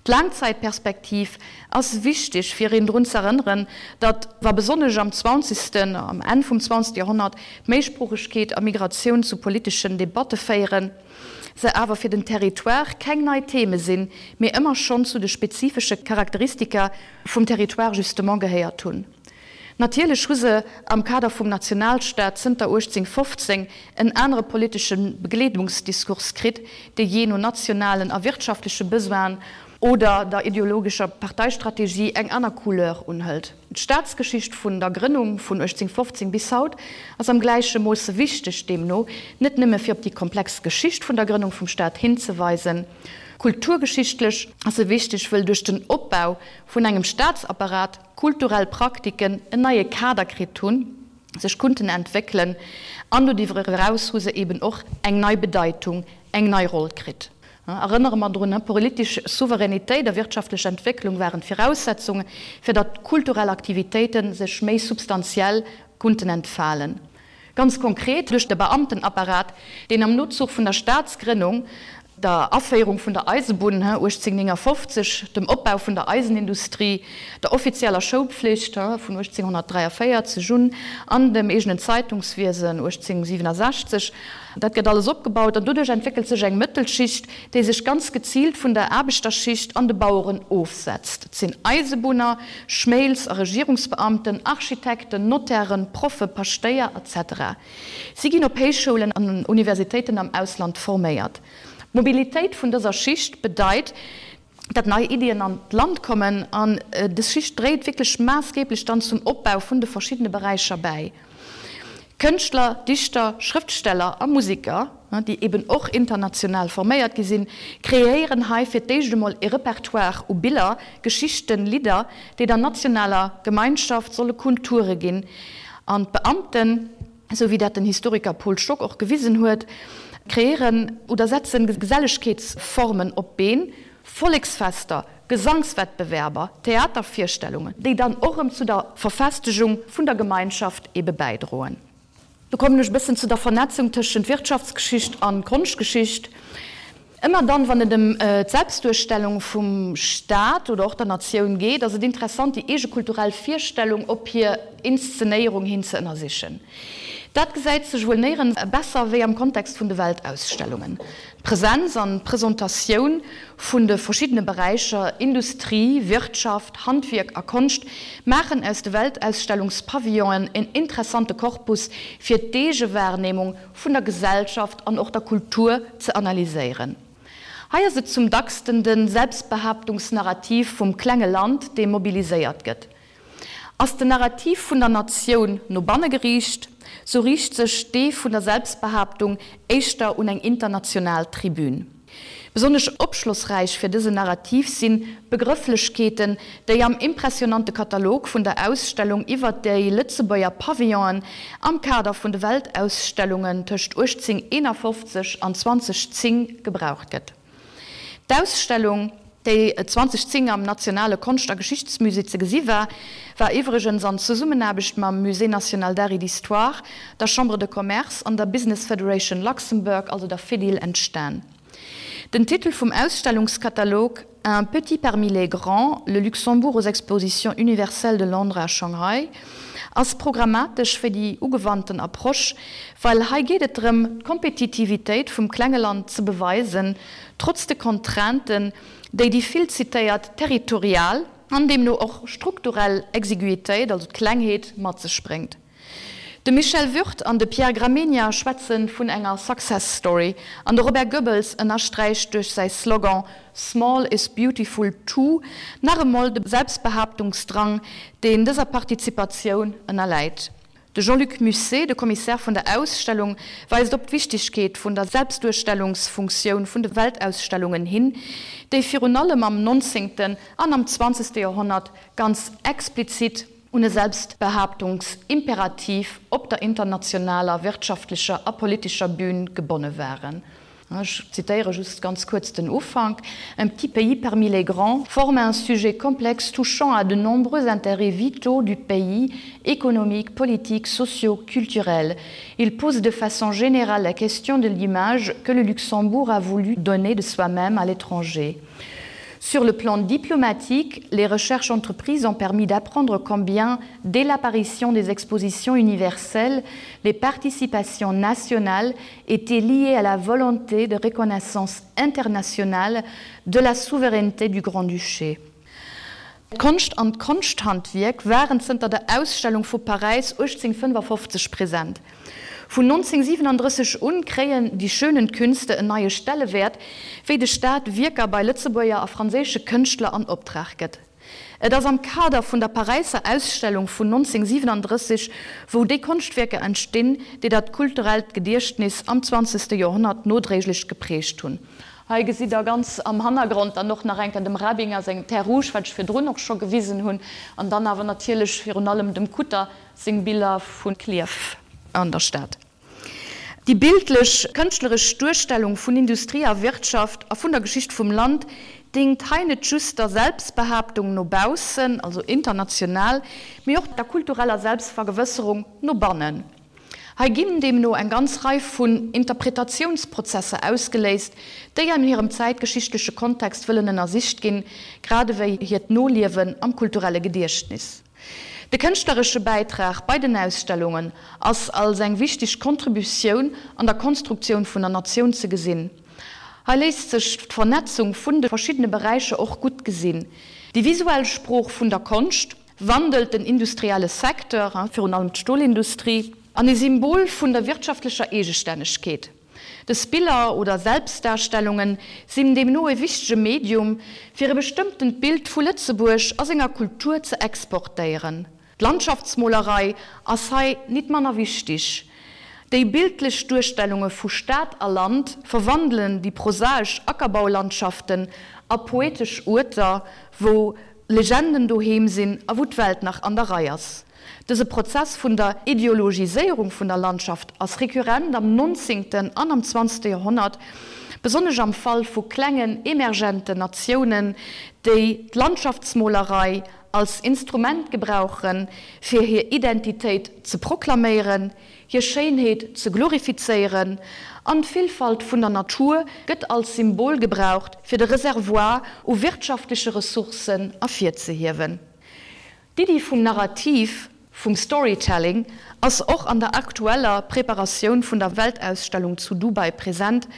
D'Laangzäitperspektiv ass wichteg, fir een drun z'erënneren, datt, wa besonnesch am zwanzegsten, am Enn vum zwanzegste Joerhonnert, d'Méisproochegkeet a Migratioun zu politeschen Debatte féieren, se awer fir den Territoire keng nei Theme sinn, mee ëmmer schonn zu de spezifesche Charakteristika vum Territoire justement gehéiert hunn. Natierlech hu se am Kader vum Nationalstaat zënter 1815 en anere politesche Begleedungsdiskurs kritt, dee jee no nationalen a wirtschaftleche Besoinen oder der ideologescher Parteistrategie eng aner Couleur unhëlt. D'Staatsgeschicht vun der Grënnung vun 1815 bis haut ass am gläiche Moosse wichteg, deemno net nëmme fir op déi komplex Geschicht vun der Grënnung vum Staat hinzeweisen. Kulturgeschichtlech ass se wichteg, wëll duerch den Opbau vun engem Staatsapparat, kulturell Praktiken en neie Kader kritt hunn, sech kunnten entwéckelen an doriwwer eraus hu se eben och eng nei Bedeitung, eng nei Roll kritt. Erënnere mer drun, Politesch Souveränitéit a wirtschaftlech Entwécklung waren d'Viraussetzunge fir datt kulturell Aktivitéite sech méi substantiell kunnten entfalen. Ganz konkret duerch de Beamtenapparat, deen am Nozuch vun der Staatsgrënnung, der Aféierung vun der Eisebunn 1859, dem Opbau vun der Eisenindustrie, der offizieller Schoulpflicht vun 1843 un an dem eegenen Zeitungswiesen 1867, dat gëtt alles opgebaut an doduerch entwéckelt sech eng Mëttelschicht, déi sech ganz geziilt vun der Aarbechterschicht an de Baueren ofsetzt. Et sinn Eisebunner, Schméils a Regierungsbeamten, Architekten, Notairen, Proffe, Paschtéier, etc. Si ginn op Héichschoulen an Universitéiten am Ausland forméiert. D'Mobilitéit vun dëser Schicht bedeit, datt nei Iddien an d'Land kommen an dës Schicht dréit wierklech maassgeblech dann zum Opbau vun de verschiddene Beräicher bäi. Kënschtler, Dichter, Schrëftsteller a Musiker, déi eben och international forméiert gi sinn, kreéieren hei fir d'éischt emol e Repertoire u Biller, Geschichten, Lidder, déi der nationaler Gemeinschaft solle Kulture ginn. An d'Beamten, esou wéi dat den Historiker Paul Stock och gewisen huet, kreéieren oder setzen Gesellegkeetsformen op d'Been, Volleksfester, Gesangswettbewerber, Theatervirstellungen, déi dann och erëm zu der Verfestegung vun der Gemeinschaft ebe bäidroen. Do kommen ech e bëssen zu der Vernetzung tëschent Wirtschaftsgeschicht an Konschtgeschicht. Ëmmer dann, wann et ëm d'Selbstduerstellung vum Staat oder och der Natioun geet, ass et interessant, déi eege kulturell Virstellung op hir Inszenéierung hin ze ënnersichen. Dat gesäit sech wuel néierens besser wéi am Kontext vun de Weltausstellungen. D'Presenz an d'Presentatioun vun de verschiddene Beräicher Industrie, Wirtschaft, Handwierk a Konscht maachen aus de Weltausstellungspavillonen en interessante Korpus fir d'Eegewahrnehmung vun der Gesellschaft an och der Kultur ze analyséieren. Hei ass et zum dacksten de Selbstbehaaptungsnarrativ vum klenge Land, dee mobiliséiert gëtt. Ass den Narrativ vun der Natioun no banne geriicht, sou riicht sech dee vun der Selbstbehaaptung éischter un eng international Tribün. Besonnesch opschlossräich fir dësen Narrativ sinn d'Begrëfflechkeeten, déi am impressionante Katalog vun der Ausstellung iwwer déi Lëtzebuerger Pavillonen am Kader vun de Weltausstellungen tëscht 1851 an 2010 gebraucht gëtt. D'Ausstellung, déi 2010 am Nationale Konscht a Geschichtsmusée ze gesi war, war iwwregens an Zesummenaarbecht mam Musée national d'art et d'histoire, der Chambre de Commerce an der Business Federation Luxembourg, also der Fedil, entstan. Den Titel vum Ausstellungskatalog Un petit parmi les grands, le Luxembourg aux expositions universelles de Londres à Shanghai ass programmatesch fir déi ugewannten Approche, well hei geet et drëm, d'Kompetitivitéit vum klenge Land ze beweisen, trotz de Contrainten, déi déi vill zitéiert territorial an deemno och strukturell Exiguïtéit, also d'Klengheet, mat sech bréngt. De Michel Würth an de Pierre Gramegna schwätze vun enger Success Story an de Robert Goebbels ënnersträicht duerch säi Slogan Small is beautiful too nach emol de Selbstbehaaptungsdrang, deen dëser Partizipatioun ënnerläit. De Jean-Luc Musset, de Kommissär vun der Ausstellung, weist op d'Wichtigkeet vun der Selbstduerstellungsfunktioun vun de Weltausstellungen hin, déi virun allem am nonzéngten an am zwanzegste Joerhonnert ganz explizit. un e Selbstbehaaptungsimperativ op der internationaler wirtschaftlecher a politescher Bühn gebonne waren. Ech zitéiere just ganz kuerz den Ufank, Un petit pays parmi les grands forme un sujet complexe touchant à de nombreux intérêts vitaux du pays, économiques, politiques, sociaux, culturels. Il pose de façon générale la question de l'image que le Luxembourg a voulu donner de soi-même à l'étranger. Sur le plan diplomatique, les recherches entreprises ont permis d'apprendre combien, dès l'apparition des expositions universelles, les participations nationales étaient liées à la volonté de reconnaissance internationale de la souveraineté du Grand-Duché. D'Konscht an d'Konschthandwierk waren zënter der Ausstellung vu Paräis 1855 present. Vun 1937 un kréien die schönen Künste en neie Stellewäert, wéi de Staat Wierker bei Lëtzebuerger a franséische Kënschtler an Optrag gëtt. Et ass am Kader vun der Paräisser Ausstellung vun 1937, wou déi Konschtwierker entstinn, déi dat kulturellt Gediechtnis am zwanzegste Joerhonnert nodréiglech geprägt hunn. Hei gesitt der ganz am Hannergrond dann och nach eng Kéier dem Rabinger seng Terre Rouge, wat ech virdrun och scho gewisen hunn, an dann awer natierlech virun allem dem Kutter seng Biller vu Klierf an der Stad. Déi bildlech, kënschtleresch Duerstellung vun Industrie a Wirtschaft a vun der Geschicht vum Land dingt hei net just der Selbstbehaaptung no baussen, also international, mee och der kultureller Selbstvergewësserung no bannen. Hei ginn deemno eng ganz Rei vun Interpretatiounsprozesser ausgeléist, déi an hirem zäitgeschichtleche Kontext wëllen ënnersicht ginn, grad ewéi hiert Noliewen am kulturelle Gediechtnis. De kënschtleresche Bäitrag bei den Ausstellungen ass als eng wichteg Contributioun an der Konstruktioun vun der Natioun ze gesinn. Hei léisst sech d'Vernetzung vun de verschiddene Beräicher och gutt gesinn. Déi visuell Sprooch vun der Konscht wandelt den industrielle Secteur, virun allem d'Stolindustrie, an e Symbol vun der wirtschaftlecher Eegestännegkeet. Dës Biller oder Selbstdarstellunge sinn deemno e wichtege Medium, fir e bestëmmtent Bild vu Lëtzebuerg a senger Kultur ze exportéieren. D'Landschaftsmolerei ass hei nit manner wichtig. Déi bildlech Duerstellunge vu Stad a Land verwandelen déi prosaesch Ackerbaulandschaften a poetesch Uerter, wou Legenden doheem sinn a wou d'Welt nach an der Rei ass. Dëse Prozess vun der Ideologiséierung vun der Landschaft ass rekurrent am nonzéngten an am zwanzegste Joerhonnert, besonnesch am Fall vu klengen emergenten Natiounen, déi d'Landschaftsmolerei als Instrument gebrauchen, fir hir Identitéit ze proklaméieren, hir Schéinheet ze glorifizéieren, an d'Villfalt vun der Natur gëtt als Symbol gebraucht, fir de Reservoir u wirtschaftleche Ressourcen ervirzehiewen. D'Iddi vum Narrativ, vum Storytelling, ass och an der aktueller Preparatioun vun der Weltausstellung zu Dubai present,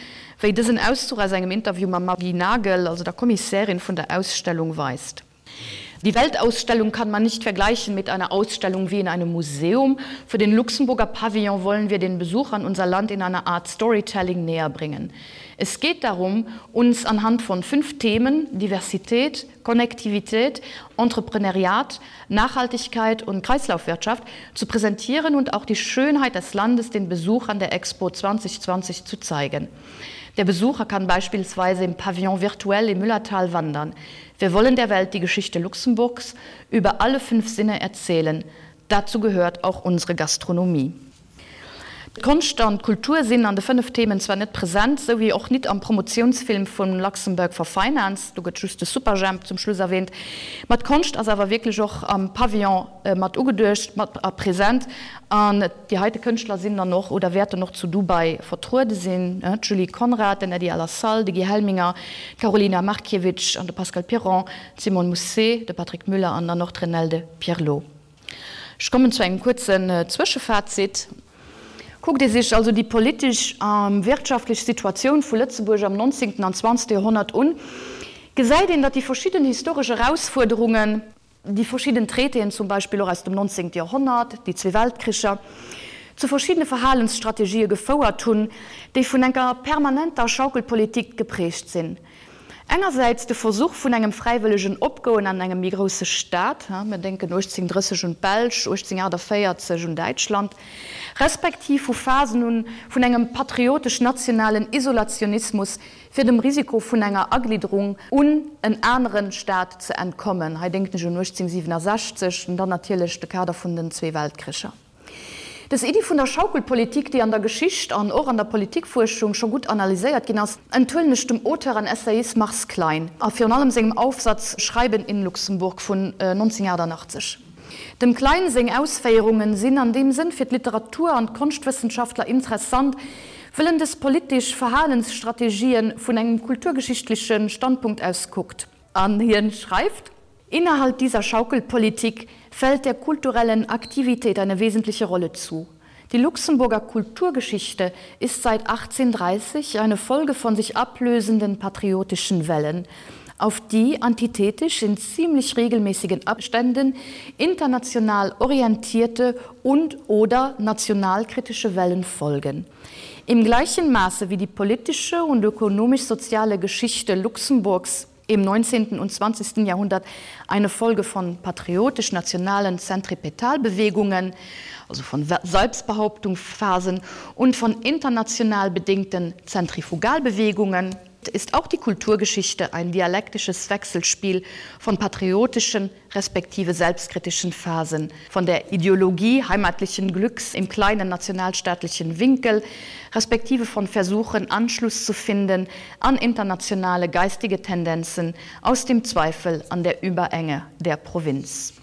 wéi dësen Auszuch aus engem Interview mam Maggy Nagel, also der Kommissärin vun der Ausstellung, weist. Die Weltausstellung kann man nicht vergleichen mit einer Ausstellung wie in einem Museum. Für den Luxemburger Pavillon wollen wir den Besuchern unser Land in einer Art Storytelling näher bringen. Es geht darum, uns anhand von fünf Themen Diversität, Konnektivität, Entrepreneuriat, Nachhaltigkeit und Kreislaufwirtschaft zu präsentieren und auch die Schönheit des Landes den Besuchern der Expo 2020 zu zeigen. Der Besucher kann beispielsweise im Pavillon virtuell im Müllertal wandern. Wir wollen der Welt die Geschichte Luxemburgs über alle fünf Sinne erzählen. Dazu gehört auch unsere Gastronomie. D'Konscht an d'Kultur sinn an de 5 Themen zwar net present, sou wéi och nit am Promotiounsfilm vun Luxembourg for Finance, do gëtt just de Superjhemp zum Schluss erwähnt, ma d'Konscht ass awer wierklech och am Pavillon mat ugeduecht, mat a present an déi heite Kënschtler sinn dann och oder wäerten och zu Dubai vertruede sinn, d'Julie Conrad, den Eddie Alassal, de Guy Helminger, d'Karolina Markiewicz an de Pascal Piron, d'Simone Mousset, de Patrick Müller an dann och d'Renelde Pierlot. Ech kommen zu engem kuerzen Zwëschefazit. Kuckt ee sech also déi politesch a wirtschaftlech Situatioun vu Lëtzebuerg am nonzéngten an zwanzegste Joerhonnert un, gesäit een, datt déi verschidden historesch Erausfuerderungen, déi verschidden Traitéen zum Beispill och aus dem nonzéngte Joerhonnert, déi zwee Weltkricher, zu verschiddene Verhalensstrategië gefouert hunn, déi vun enker permanenter Schaukelpolitik geprägt sinn. Engersäits de Versuch vun engem fräiwëllegen Opgoen an engem méi grousse Staat, mir denken 1830 un d'Belsch, 1848 un Däitschland, respektiv vu Phasen un vun engem patriotesch-nationalen Isolationismus, fir dem Risiko vun enger Aglidderung un en anere Staat ze entkommen, hei denken ech un 1867 an dann natierlech de Kader vun den zwee Weltkricher. Dës Iddi vun der Schaukelpolitik, déi an der Geschicht an och an der Politikfuerschung scho gutt analyséiert ginn ass, enthuelen ech dem Auteur an Essayist Mars Klein a virun allem sengem Aufsatz Schreiben in Luxemburg vun 1988. Dem Klein seng Ausféierungen sinn an deem Sënn fir d'Literatur an d'Konschtwëssenschaftler interessant, wëll en dës politesch Verhalensstrategien vun engem kulturgeschichtleche Standpunkt aus kuckt. An hien schreift: Innerhalb dieser Schaukelpolitik fällt der kulturellen Aktivität eine wesentliche Rolle zu. Die Luxemburger Kulturgeschichte ist seit 1830 eine Folge von sich ablösenden patriotischen Wellen, auf die antithetisch in ziemlich regelmäßigen Abständen international orientierte und oder nationalkritische Wellen folgen. Im gleichen Maße wie die politische und ökonomisch-soziale Geschichte Luxemburgs im 19. und 20. Jahrhundert eine Folge von patriotisch-nationalen Zentripetalbewegungen, also von Selbstbehauptungsphasen und von international bedingten Zentrifugalbewegungen, ist auch die Kulturgeschichte ein dialektisches Wechselspiel von patriotischen respektive selbstkritischen Phasen, von der Ideologie heimatlichen Glücks im kleinen nationalstaatlichen Winkel, respektive von Versuchen, Anschluss zu finden an internationale geistige Tendenzen aus dem Zweifel an der Überenge der Provinz.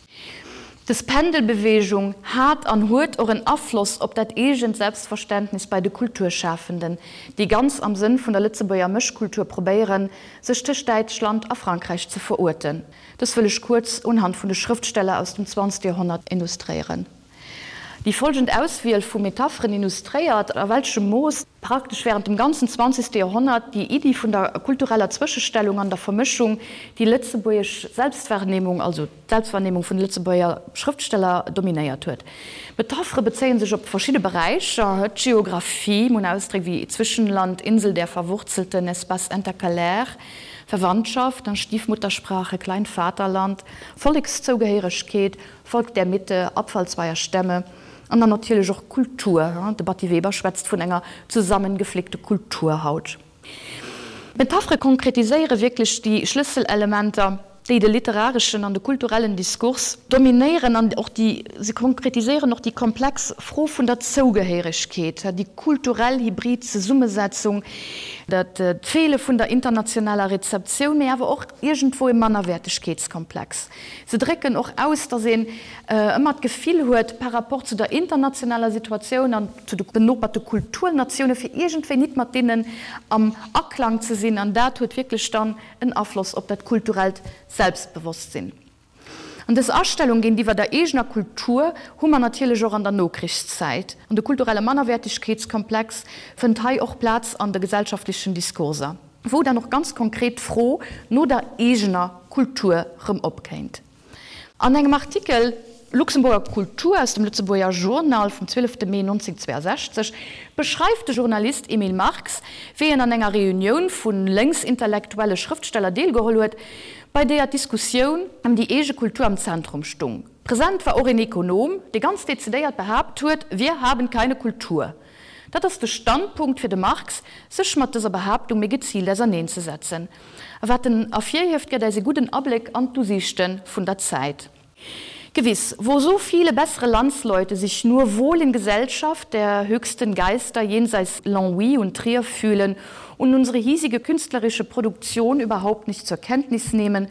Dës Pendelbeweegung hat an huet och en Afloss op dat eegent Selbstverständnis bei de Kulturschafenden, déi ganz am Sënn vun der Lëtzebuerger Mëschkultur probéieren, sech tëscht Däitschland a Frankräich ze veruerten. Dës wëll ech kuerz unhand vun de Schrëftsteller aus dem zwanzegste Joerhonnert illustréieren. Déi folgend Auswiel vu Metapheren illustréiert, a welchem Mooss praktesch während dem ganzen zwanzegste Joerhonnert déi Iddi vun der kultureller Zwëschestellung an der Vermëschung déi lëtzebuergesch Selbstwahrnehmung, also d'Selbstwahrnehmung vun de Lëtzebuerger Schrëftsteller, dominéiert huet. D'Metaphere bezéie sech op verschidde Beräicher, d'Geographie, mir hunn Ausdréck wéi Zwischenland, Insel der Verwurzelten, Espace intercalaire, Verwandtschaft, Stiefmuttersprache, Kleinvaterland, Vollekszougehéieregkeet, Volk der Mitte, Abfall zweier Stämme an dann natierlech och Kultur. De Batty Weber schwätzt vun enger zusammengeflickte Kulturhaut. D'Metaphere konkretiséiere wierklech déi Schlësselelementer, déi de literareschen an de kulturellen Diskurs dominéieren an och déi, se konkretiséieren och déi komplex Fro vun der Zougehéieregkeet, déi kulturell hybrid Zesummesetzung, dat d'Feele vun der internationaler Rezeptioun, mee awer och iergendwou e Mannerwäertegkeetskomplex. Se drécken och aus, datt een ëmmer d'Gefill huet, par rapport zu der internationaler Situatioun an zu de benoperte Kulturnatioune fir iergendwéi nit mat deenen am Aklang ze sinn. An dat huet wierklech dann en Afloss op dat kulturellt Selbstbewosstsinn. An dës Astellung géintiwwer der eegener Kultur hu mer natierlech och an der Nokrichszäit. An de kulturelle Mannerwäertegkeetskomplex fënnt hei och Plaz an de gesellschaftlechen Diskurser, wou dann och ganz konkret d'Fro no der eegener Kultur rëm opkéint. An engem Artikel Luxemburger Kultur aus dem Lëtzebuerger Journal vum 12 Mee 1962 beschreift de Journalist Emil Marx, wéi en an enger Reunioun vu lénksintellektuelle Schrëftsteller deelgeholl huet, bei deeër d'Diskussioun ëm déi eege Kultur am Zentrum stung. Present war och een Ekonom, dee ganz dezidéiert behaapt huet, Wir haben keine Kultur. Dat ass de Standpunkt fir de Marx, sech mat dëser Behaaptung méi geziilt auserneenzesetzen. A wat en ervirhieft, gëtt äis e gudden Abléck an d'Usiichte vun der Zäit. Gewiss, wo so viele bessere Landsleute sich nur wohl in Gesellschaft der höchsten Geister jenseits Longwy und Trier fühlen und unsere hiesige künstlerische Produktion überhaupt nicht zur Kenntnis nehmen,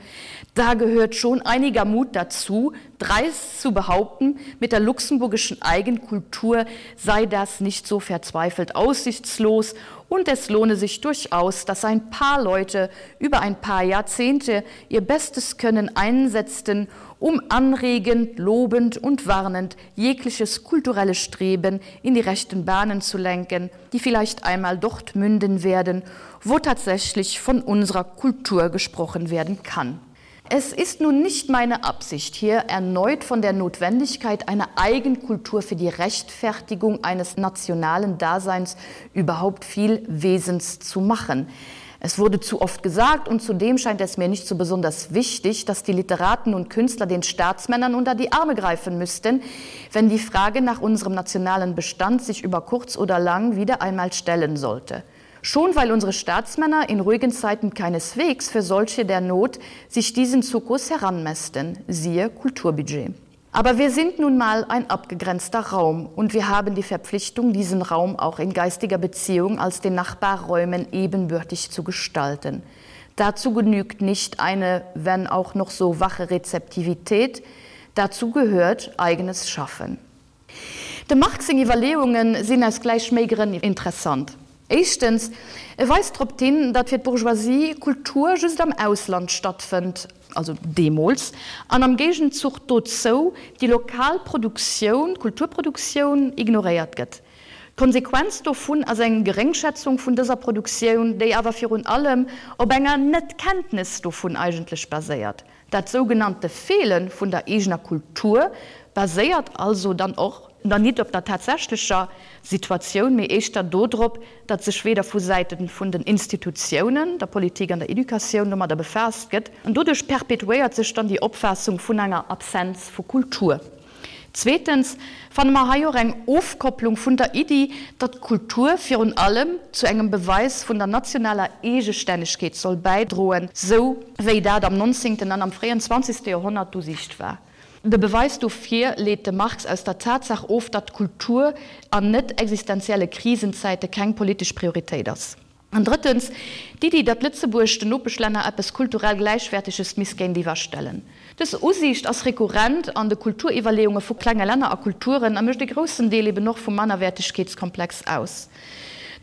da gehört schon einiger Mut dazu, dreist zu behaupten, mit der luxemburgischen Eigenkultur sei das nicht so verzweifelt aussichtslos und es lohne sich durchaus, dass ein paar Leute über ein paar Jahrzehnte ihr bestes Können einsetzten, um anregend, lobend und warnend jegliches kulturelle Streben in die rechten Bahnen zu lenken, die vielleicht einmal dort münden werden, wo tatsächlich von unserer Kultur gesprochen werden kann. Es ist nun nicht meine Absicht, hier erneut von der Notwendigkeit einer Eigenkultur für die Rechtfertigung eines nationalen Daseins überhaupt viel Wesens zu machen. Es wurde zu oft gesagt und zudem scheint es mir nicht so besonders wichtig, dass die Literaten und Künstler den Staatsmännern unter die Arme greifen müssten, wenn die Frage nach unserem nationalen Bestand sich über kurz oder lang wieder einmal stellen sollte. Schon weil unsere Staatsmänner in ruhigen Zeiten keineswegs für solche der Not sich diesen Zukus heranmästen, siehe Kulturbudget. Aber wir sind nun mal ein abgegrenzter Raum und wir haben die Verpflichtung, diesen Raum auch in geistiger Beziehung als den Nachbarräumen ebenbürtig zu gestalten. Dazu genügt nicht eine, wenn auch noch so wache Rezeptivität, dazu gehört eigenes Schaffen. Dem Marx seng Iwwerleeunge sinn aus gläich méi Grënn interessant. Éischtens, e weist drop hin, datt fir d'Bourgeoisie Kultur just am Ausland stattfënnt, also deemools, an am Géigenzuch dozou déi lokal Produktioun, Kulturproduktioun, ignoréiert gëtt. D'Konsequenz dovun ass eng Geréngschätzung vun dëser Produktioun, déi awer virun allem op enger Net-Kenntnes dovun eigentlech baséiert. Dat sougenannte Feele vun der eegener Kultur baséiert also dann och dann nit op der tatsächlecher Situatioun, mee éischter dodrop, datt sech weder vu Säite vun den Institutiounen, der Politik an der Educatioun domadder befaasst gëtt. An doduerch perpetuéiert sech dann déi Opfaassung vun enger Absenz vu Kultur. Zweetens fanne mer hei och eng Ofkopplung vun der Iddi, datt Kultur virun allem zu engem Beweis vun der nationaler Eegestännegkeet soll bäidroen, sou wéi dat am nonzéngten an am fréien zwanzegste Joerhonnert d'Usiicht war. De Beweis dofir leet de Marx aus der Tatsaach of, datt Kultur an net existenzielle Krisenzäite keng politesch Prioritéit ass. An drëttens, d'Iddi, datt Lëtzebuerg den Nopeschlänner eppes kulturell Gläichwäerteges misst géintiwwer stellen. Dës Usiicht ass rekurrent an de Kulturiwwerleeunge vu klenge Länner a Kulturen a mécht e groussen Deel eben och vum Mannerwäertegkeetskomplex aus.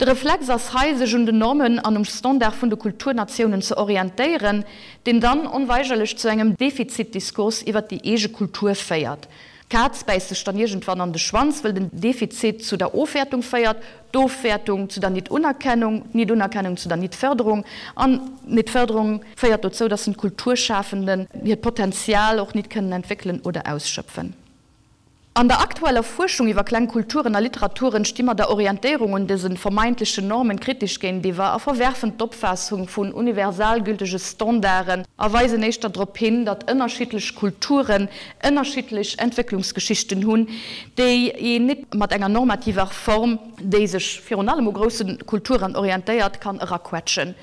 De Reflex ass hei, sech un den Normen an um Standard vun de Kulturnatiounen ze orientéieren, deen dann onweigerlech zu engem Defizitdiskurs iwwer déi eege Kultur féiert. D'Kaz bäisst sech dann iergendwann an de Schwanz, wëll den Defizit zu der Ofwäertung féiert, D'Ofwäertung zu der Nit-Unerkennung, d'Nit-Unerkennung zu der Nit-Fërderung an d'Nit-Fërderung féiert dozou, dass den d'Kulturschafenden hiert Potenzial och nit kënnen entwéckelen oder ausschöpfen. An der aktueller Fuerschung iwwer kleng Kulturen a Literaturen sti mer der Orientéierung un dëse vermeintlechen Normen kritesch géintiwwer a verwerfen d'Opfaassung vun universalgültege Standarden a weisen éischter drop hin, datt ënnerschiddlech Kulturen ënnerschiddlech Entwécklungsgeschichten hunn, déi een nit mat enger normativer Form, déi sech virun allem u grousse Kulturen orientéiert, kann eraquetschen.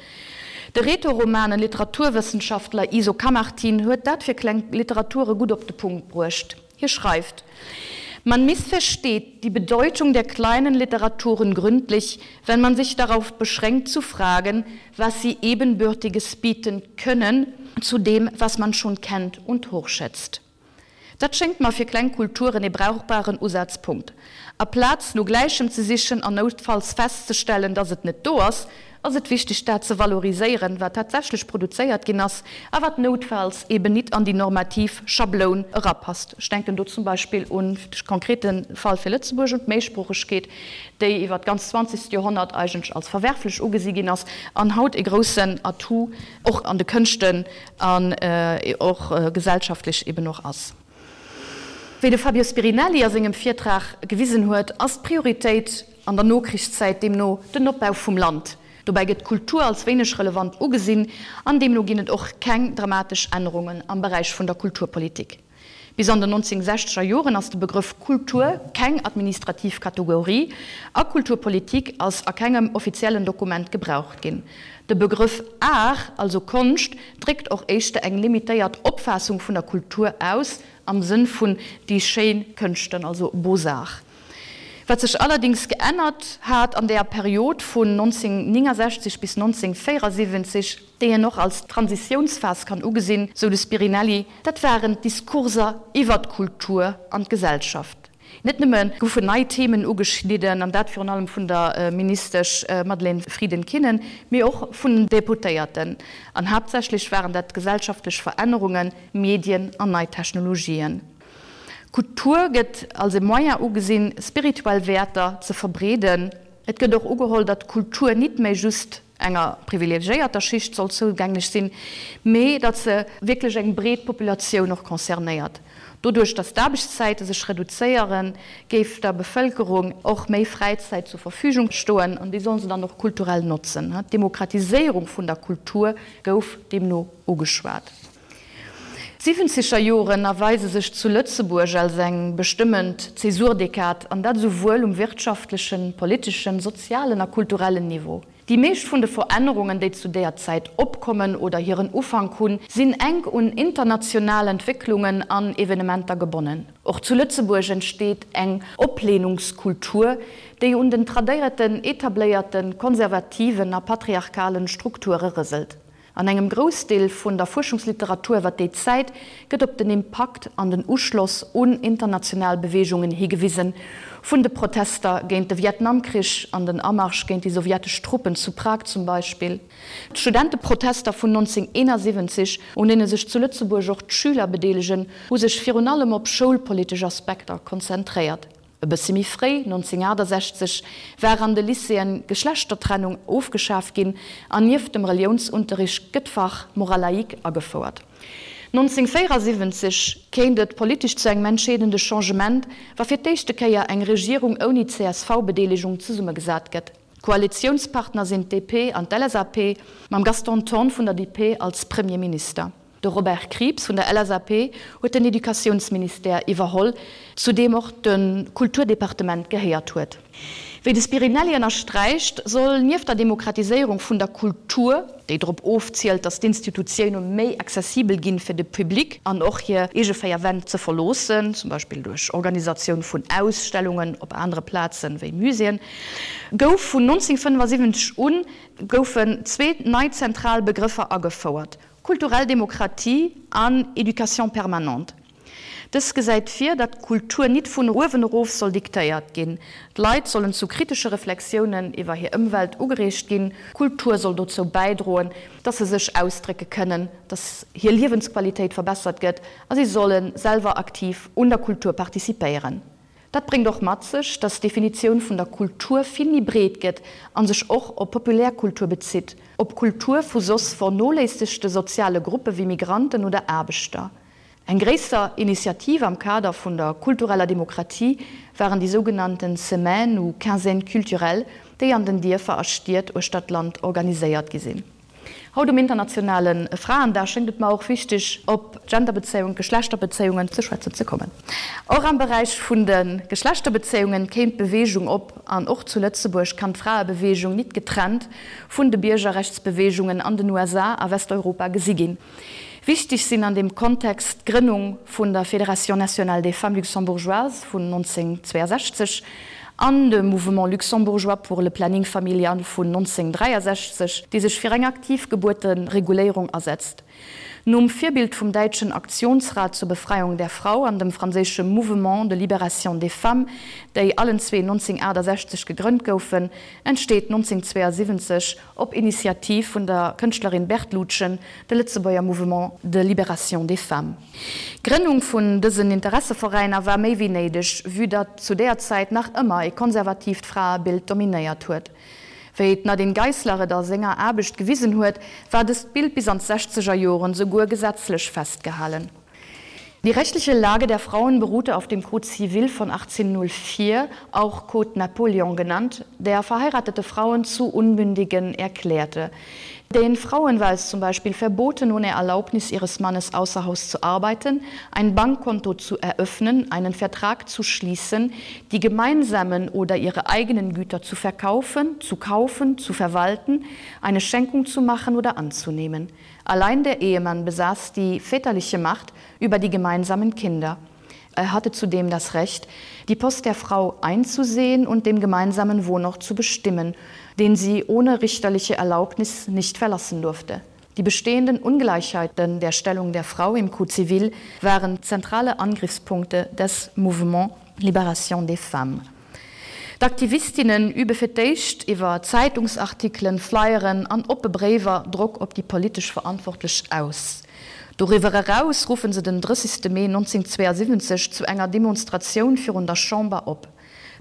De Rätoromanen Literaturwëssenschaftler Iso Camartin huet dat fir kleng Literature gutt op de Punkt bruecht. Hie schreift, Man missversteht die Bedeutung der kleinen Literaturen gründlich, wenn man sich darauf beschränkt zu fragen, was sie Ebenbürtiges bieten können zu dem, was man schon kennt und hochschätzt. Dat schéngt mer fir kleng Kulturen ee brauchbaren Usazpunkt. Aplaz no Gläichem ze sichen an noutfalls festzestellen, dass et net do ass, ass et wichteg dat ze valoriséieren, wat tatsächlech produzéiert ginn ass a wat noutfalls eben nit an déi normativ Schabloun erapasst. Ech denken do zum Beispill un de konkrete Fall fir Lëtzebuerg, un d'Méisproochegkeet, déi iwwer d'ganz zwanzegst Joerhonnert eigentlech als verwerflech ugesi ginn ass an haut e groussen Atout och an de Kënschten an och gesellschaftlech eben och ass. Wéi de Fabio Spirinelli a sengem Virtrag gewisen huet, ass d'Prioritéit an der Nokrichszäit deemno den Opbau vum Land. Dobäi gëtt d'Kultur als wéineg relevant ugesinn an deemno ginn et och keng dramatesch Ännerungen am Beräich vun der Kulturpolitik. Bis an den 1960er Joren ass de Begrëff Kultur keng administrativ Kategorie a Kulturpolitik ass a kengem offiziellen Dokument gebraucht ginn. De Begrëff Art, also Konscht, dréckt och éischter eng limitéiert Opfaassung vun der Kultur aus, am Sënn vun déi schéin Kënschten, also Beaux-Arts. Wat sech allerdings geännert hat an deeër Period vun 1969 bis 1974, déi een och als Transitiounsphas kann ugesinn, sou de Spirinelli, dat waren d'Diskurser iwwer d'Kultur an d'Gesellschaft. Net nëmme goufen nei Themen ugeschnidden, an dat virun allem vun der Ministesch Madeleine Frieden-Kinnen, mee och vun den Deputéierten. An haaptsächlech waren dat gesellschaftlech Verännerungen, Medien an nei Technologien. Kultur gëtt als e Moyen ugesinn, spirituell Wäerter ze verbreeden. Et gëtt och ugeholl, datt Kultur nit méi just. enger privilegiéierter Schicht soll zougänglech sinn, mee datt se wierklech eng breet Populatioun och concernéiert. Doduerch, datt d'Aarbechtszäite sech reduzéieren, géif der Bevëlkerung och méi Fräizäit zur Verfügung stoen an déi solle se dann och kulturell notzen. D'Demokratiséierung vun der Kultur gouf deemno ugeschwat. D'Siwwenzeger Joren erweise sech zu Lëtzebuerg als eng bestëmmend Zäsurdekad, an dat esouwuel um wirtschaftlechen, politeschen, sozialen a kulturellen Niveau. Déi meescht vun de Verännerungen, déi zu deeër Zäit opkommen oder hiren Ufank hunn, sinn enk un international Entwécklungen an Evenementer gebonnen. Och zu Lëtzebuerg entsteet eng Opleenungskultur, déi un den tradéierten, etabléierten, konservativen a patriarchalen Strukture rëselt. An engem Groussdeel vun der Fuerschungsliteratur iwwer déi Zäit gëtt op den Impakt an den Uschloss un international Beweegungen higewisen, vun de Protester géint de Vietnamkrich an den Amarsch géint déi sowjetesch Truppen zu Prag zum Beispill, d'Studenteprotester vun 1971, un deene sech zu Lëtzebuerg och d'Schüler bedeelegen, hu sech virun allem op schoulpolitesch Aspekter konzentréiert. E bëssi méi fréi, 1968, war an de Lycéeën d'Geschlechtertrennung ofgeschaf ginn an nieft dem Reliounsunterricht gëtt d'Fach Morale laïque agefouert. 1974 kéint et politesch zu engem entscheedende Changement, wa fir d'éischte Kéier eng Regierung ouni CSV-Bedeelegung zesummegesat gëtt. D'Koalitiounspartner sinn d'DP an d'LSAP, mam Gaston Thorn vun der DP als Premierminister. De Robert Krieps vun der LSAP huet den Educatiounsministère iwwerholl, zu deem och de Kulturdepartement gehéiert huet. Wéi de Spirinelli ënnersträicht, soll nieft der Demokratiséierung vun der Kultur, déi drop ofzielt, datt d'Institutioune méi accessibel ginn fir de Public an och hir eege 4 Wänn ze verloossen, zum Beispill duerch Organisatioun vun Ausstellungen op anere Plazen wéi Muséeën, gouf vun 1975 un goufen zwee nei zentral Begrëffer agefouert, Kulturell Demokratie an Éducation permanente. Dës gesäit vir, datt d'Kultur nit vun uewen erof soll diktéiert ginn. D'Leit sollen zu kritesche Reflexiounen iwwer hir Ëmwelt ugereegt ginn. Kultur soll dozou bäidroen, datt se sech ausdrécke kënnen, datt hir Liewensqualitéit verbessert gëtt a si solle selwer aktiv un der Kultur participéieren. Dat bréngt och mat sech, datt d'Definitioun vun der Kultur vill méi breet gëtt a sech och op Populärkultur bezitt, op Kultur vu soss vernoléissegte soziale Gruppe wéi Migranten oder Aarbechter. Eng gréisser Initiativ am Kader vun der kultureller Demokratie waren déi sougenannten Semaines ou Quinzaines culturelles, déi an den Dierfer a Stied uechter d'Land organiséiert gi sinn. Haut um internationale Fraendag schéngt et mer och wichteg, op d'Genderbezéiungen, d'Geschlechterbezéiungen ze schwätzen ze kommen. Och am Beräich vun de Geschlechterbezéiungen kéim d'Beweegung op an och zu Lëtzebuerg kann d'Fraebeweegung nit getrennt vun de Biergerrechtsbeweegungen an den USA a Westeuropa gesi ginn. Wichteg sinn an deem Kontext d'Grënnung vun der Fédération nationale des femmes luxembourgeoises vun 1962 an de Mouvement luxembourgeois pour le planning familial vun 1963, dee sech fir eng aktiv Gebuertereguléierung asetzt. Nom Virbild vum däitschen Aktionsrat zur Befreiung der Frau an dem franséische Mouvement de libération des femmes, déi allenzwee 1968 gegrënnt goufen, entsteet 1972 Op Initiativ vun der Kënschtlerin Berthe Lutgen, de Lëtzebuerger Mouvement de Libération des Femmes. D'Grënnung vun dësen Interesseveräiner war méi wéi néideg, vue datt zu deeër Zäit nach ëmmer e konservatiivt Fraebild dominéiert huet. Wéi d'Nadine Geisler et a senger Aarbecht gewisen huet, war dëst Bild bis an d'sechzeger Joren souguer gesetzlech festgehalen. Die rechtliche Lage der Frauen beruhte auf dem Code civil von 1804, auch Code Napoleon genannt, der verheiratete Frauen zu Unmündigen erklärte. Den Frauen war es zum Beispiel verboten, ohne Erlaubnis ihres Mannes außer Haus zu arbeiten, ein Bankkonto zu eröffnen, einen Vertrag zu schließen, die gemeinsamen oder ihre eigenen Güter zu verkaufen, zu kaufen, zu verwalten, eine Schenkung zu machen oder anzunehmen. Allein der Ehemann besaß die väterliche Macht über die gemeinsamen Kinder. Er hatte zudem das Recht, die Post der Frau einzusehen und den gemeinsamen Wohnort zu bestimmen, den sie ohne richterliche Erlaubnis nicht verlassen durfte. Die bestehenden Ungleichheiten der Stellung der Frau im Code civil waren zentrale Angriffspunkte des Mouvement Libération des Femmes. D'Aktivistinnen übe fir d'éischt iwwer Zeitungsartikelen, Flyeren an oppe Bréiwer Drock op déi politesch Verantwortlech aus. Doriwwer eraus ruffe se den 30 Mee 1972 zu enger Demonstratioun virun der Chamber op.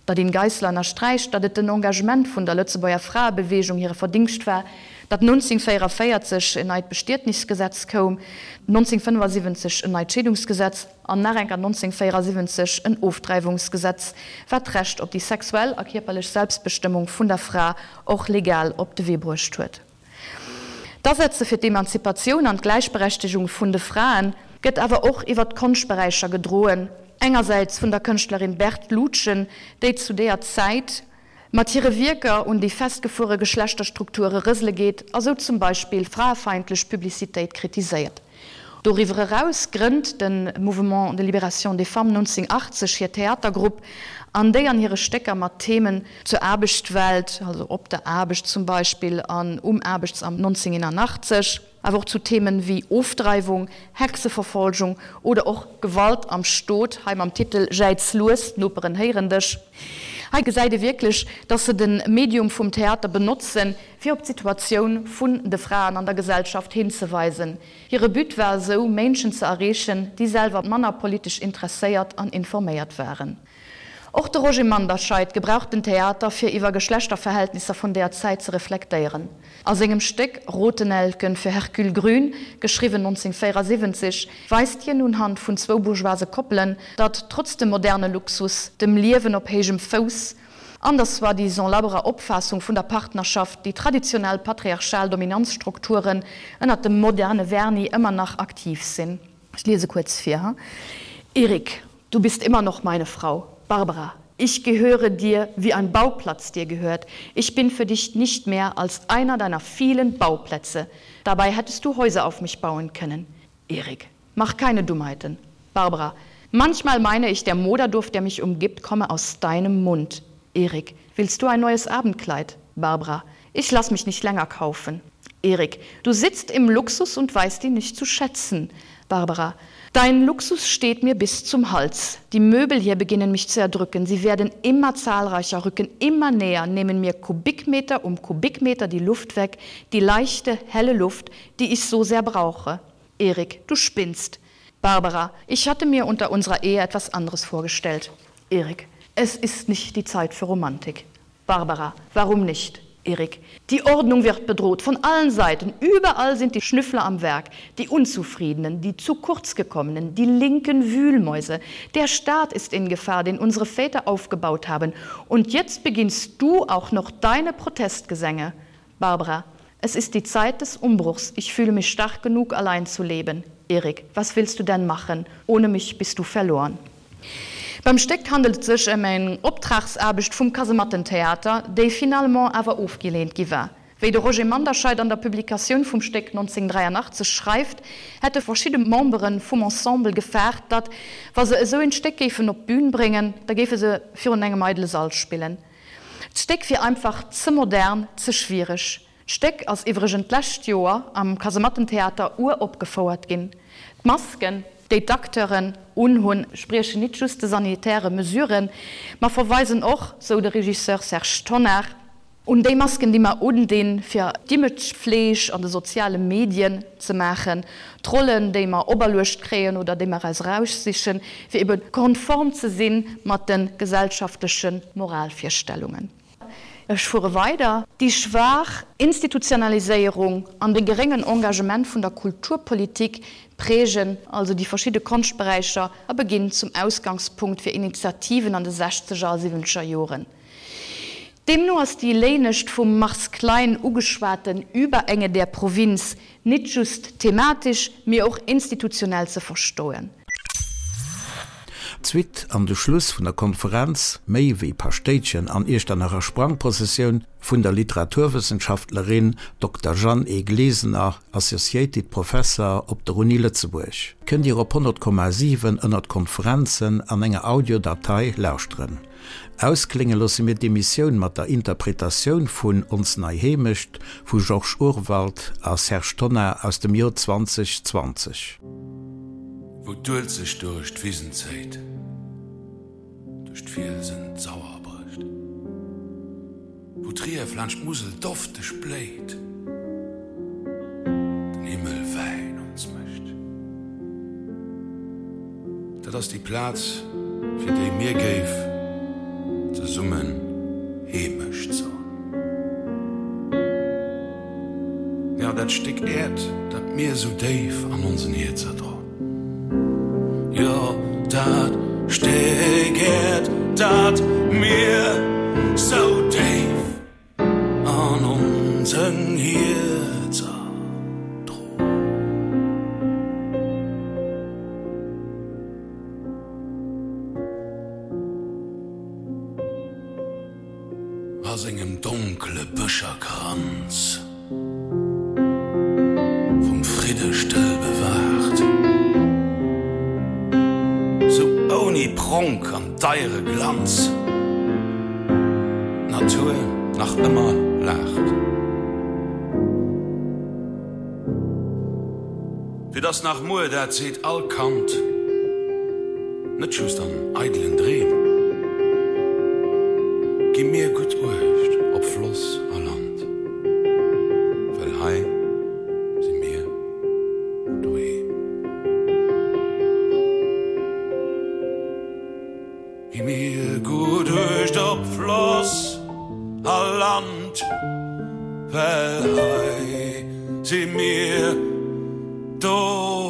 D'Nadine Geisler ënnersträicht, datt et den Engagement vun der Lëtzebuerger Fraebeweegung hire Verdingscht war, datt 1944 en neit Bestietnisgesetz koum, 1975 en neit Scheedungsgesetz an nach enker 1974 en Ofdreiwungsgesetz, wat d'Recht op déi sexuell a kierperlech Selbstbestëmmung vun der Fra och legal op de Wee bruecht huet. D'Asetze fir d'Emanzipatioun an d'Gläichberechtegung vun de Frae gëtt awer och iwwer d'Konschtberäicher gedroen, engersäits vun der Kënschtlerin Berthe Lutgen, déi zu deeër Zäit mat hire Wierker un déi festgefuere Geschlechterstrukture rësele geet a sou zum Beispill fraefeindlech Publicitéit kritiséiert. Doriwwer eraus grënnt de Mouvement de Libération des Femmes 1980 hir Theatergrupp, an déi an hire Stécker mat Themen zur Aarbechtswelt, also Op der Aarbecht zum Beispill an Um Aarbechtsamt 1981, awer och zu Themen wéi Ofdreiwung, Hexeverfolgung oder och Gewalt am Stot, hei mam Titel Jäiz lues, d'Noperen héieren dech. Hei gesäit ee wierklech, dass se de Medium vum Theater benotzen, fir op d'Situatioun vun de Fraen an der Gesellschaft hinzeweisen. Hire But war esou, Ménschen ze erreechen, déi selwer manner politesch interesséiert an informéiert waren. Och de Roger Manderscheid gebraucht den Theater, fir iwwer Geschlechterverhältnisser vun deeër Zäit ze reflektéieren. A sengem Stéck Rotenelken für Hercule Grün, geschriwwen 1974, weist hien unhand vun zwou bourgeoise Koppelen, datt trotz dem moderne Luxus, dem Liewen op héijem Fouss, An der soi-disant labberer Opfaassung vun der Partnerschaft, déi traditionell patriarchal Dominanzstrukturen ënnert dem moderne Vernis ëmmer nach aktiv sinn. Ech liese kuerz vir, Erik, du bist immer noch meine Frau. Barbara, ich gehöre dir, wie ein Bauplatz dir gehört. Ich bin für dich nicht mehr als einer deiner vielen Bauplätze. Dabei hättest du Häuser auf mich bauen können. Erik, mach keine Dummheiten. Barbara, manchmal meine ich, der Moderduft, der mich umgibt, komme aus deinem Mund. Erik, willst du ein neues Abendkleid? Barbara, ich lass mich nicht länger kaufen. Erik, du sitzt im Luxus und weißt ihn nicht zu schätzen. Barbara, dein Luxus steht mir bis zum Hals. Die Möbel hier beginnen mich zu erdrücken. Sie werden immer zahlreicher, rücken immer näher, nehmen mir Kubikmeter um Kubikmeter die Luft weg, die leichte, helle Luft, die ich so sehr brauche. Erik, du spinnst. Barbara, ich hatte mir unter unserer Ehe etwas anderes vorgestellt. Erik, es ist nicht die Zeit für Romantik. Barbara, warum nicht? Erik, die Ordnung wird bedroht von allen Seiten. Überall sind die Schnüffler am Werk, die Unzufriedenen, die zu kurz gekommenen, die linken Wühlmäuse. Der Staat ist in Gefahr, den unsere Väter aufgebaut haben. Und jetzt beginnst du auch noch deine Protestgesänge. Barbara, es ist die Zeit des Umbruchs. Ich fühle mich stark genug, allein zu leben. Erik, was willst du denn machen? Ohne mich bist du verloren. Beim Stéck handelt et sech ëm eng Optragsaarbecht vum Kasemattentheater, déi finalement awer ofgeleent gi war. Wéi de Roger Manderscheid an der Publikatioun vum Stéck 1983 schreift, hätte verschidde Membere vum Ensemble gefaart, datt, wa se esou een Stéck géifen op d'Bün bréngen, da géife se virun engem eidele Sall spillen. D'Stéck wier einfach ze modern, ze schwiereg. D'Stéck ass iwwregent d'lescht Joer am Kasemattentheater uropgefouert ginn. D'Masken, déi d'Acteuren unhunn, spriechen nit just de sanitäre Mesuren, ma verweisen och, sou de Regisseur Serge Tonnar, un déi Masken, déi mer undinn, fir d'Imagefleeg an de soziale Medien ze maachen, d'Rollen, déi mer operluecht kréien oder déi mer eis eraussichen, fir ebe konform ze si mat de gesellschaftleche Moralvirstellungen. Ech fuere weider. Déi schwaach Institutionaliséierung an de geréngen Engagement vun der Kulturpolitik prägen also déi verschidde Konschtberäicher a beginn zum Ausgangspunkt fir Initiativen an de sechzeger a siwwenzeger Joren. Deemno ass déi léinescht vum Mars Klein ugeschwaten Überenge der Provinz nit just thematisch, mee och institutionell ze verstoen. D'Suite an de Schluss vun der Konferenz Méi wéi Paschtéitchen an Iechternacher Sprangprozessioun vun der Literaturwëssenschaftlerin Dokter Jeanne E. Glesener, Associated Professor op der Uni Lëtzebuerg, kënnt Dir op 100,7 ënnert Konferenzen an enger Audiodatei lauschteren. Ausklénge loosse mir d'Emissioun mat der Interpretatioun vun Ons nei Heemecht vu Georges Urwald a Serge Tonnar aus dem Joer 2020. Wou d'Uelzecht duerch d'Wisen zéit, duerch d'Fielsen d'Sauer brécht, wou d'Rief laanscht d'Musel dofteg bléit, den Himmel Wäin ons mécht. Dat ass déi Plaz, fir déi mir géif ze. Zesummen Heemecht soen. Jo, dat Stéck Äerd, dat mir sou déif an onsen Hierzer droen. Jo, dat Stéck Äerd, dat mir sou déif an onsen Hierzer droen. A sengem donkele Bëscherkranz vum Fridde stëll bewaacht, sou ouni Pronk an deiere Glanz d'Natur nach ëmmer laacht. Fir dass nach muer, dat seet all Kand, net just an eidelen Dreem, gi mir gutt Uecht op Floss a Land, well hei si mir doheem. Gi mir gutt Uecht op Floss a Land, well hei si mir doheem.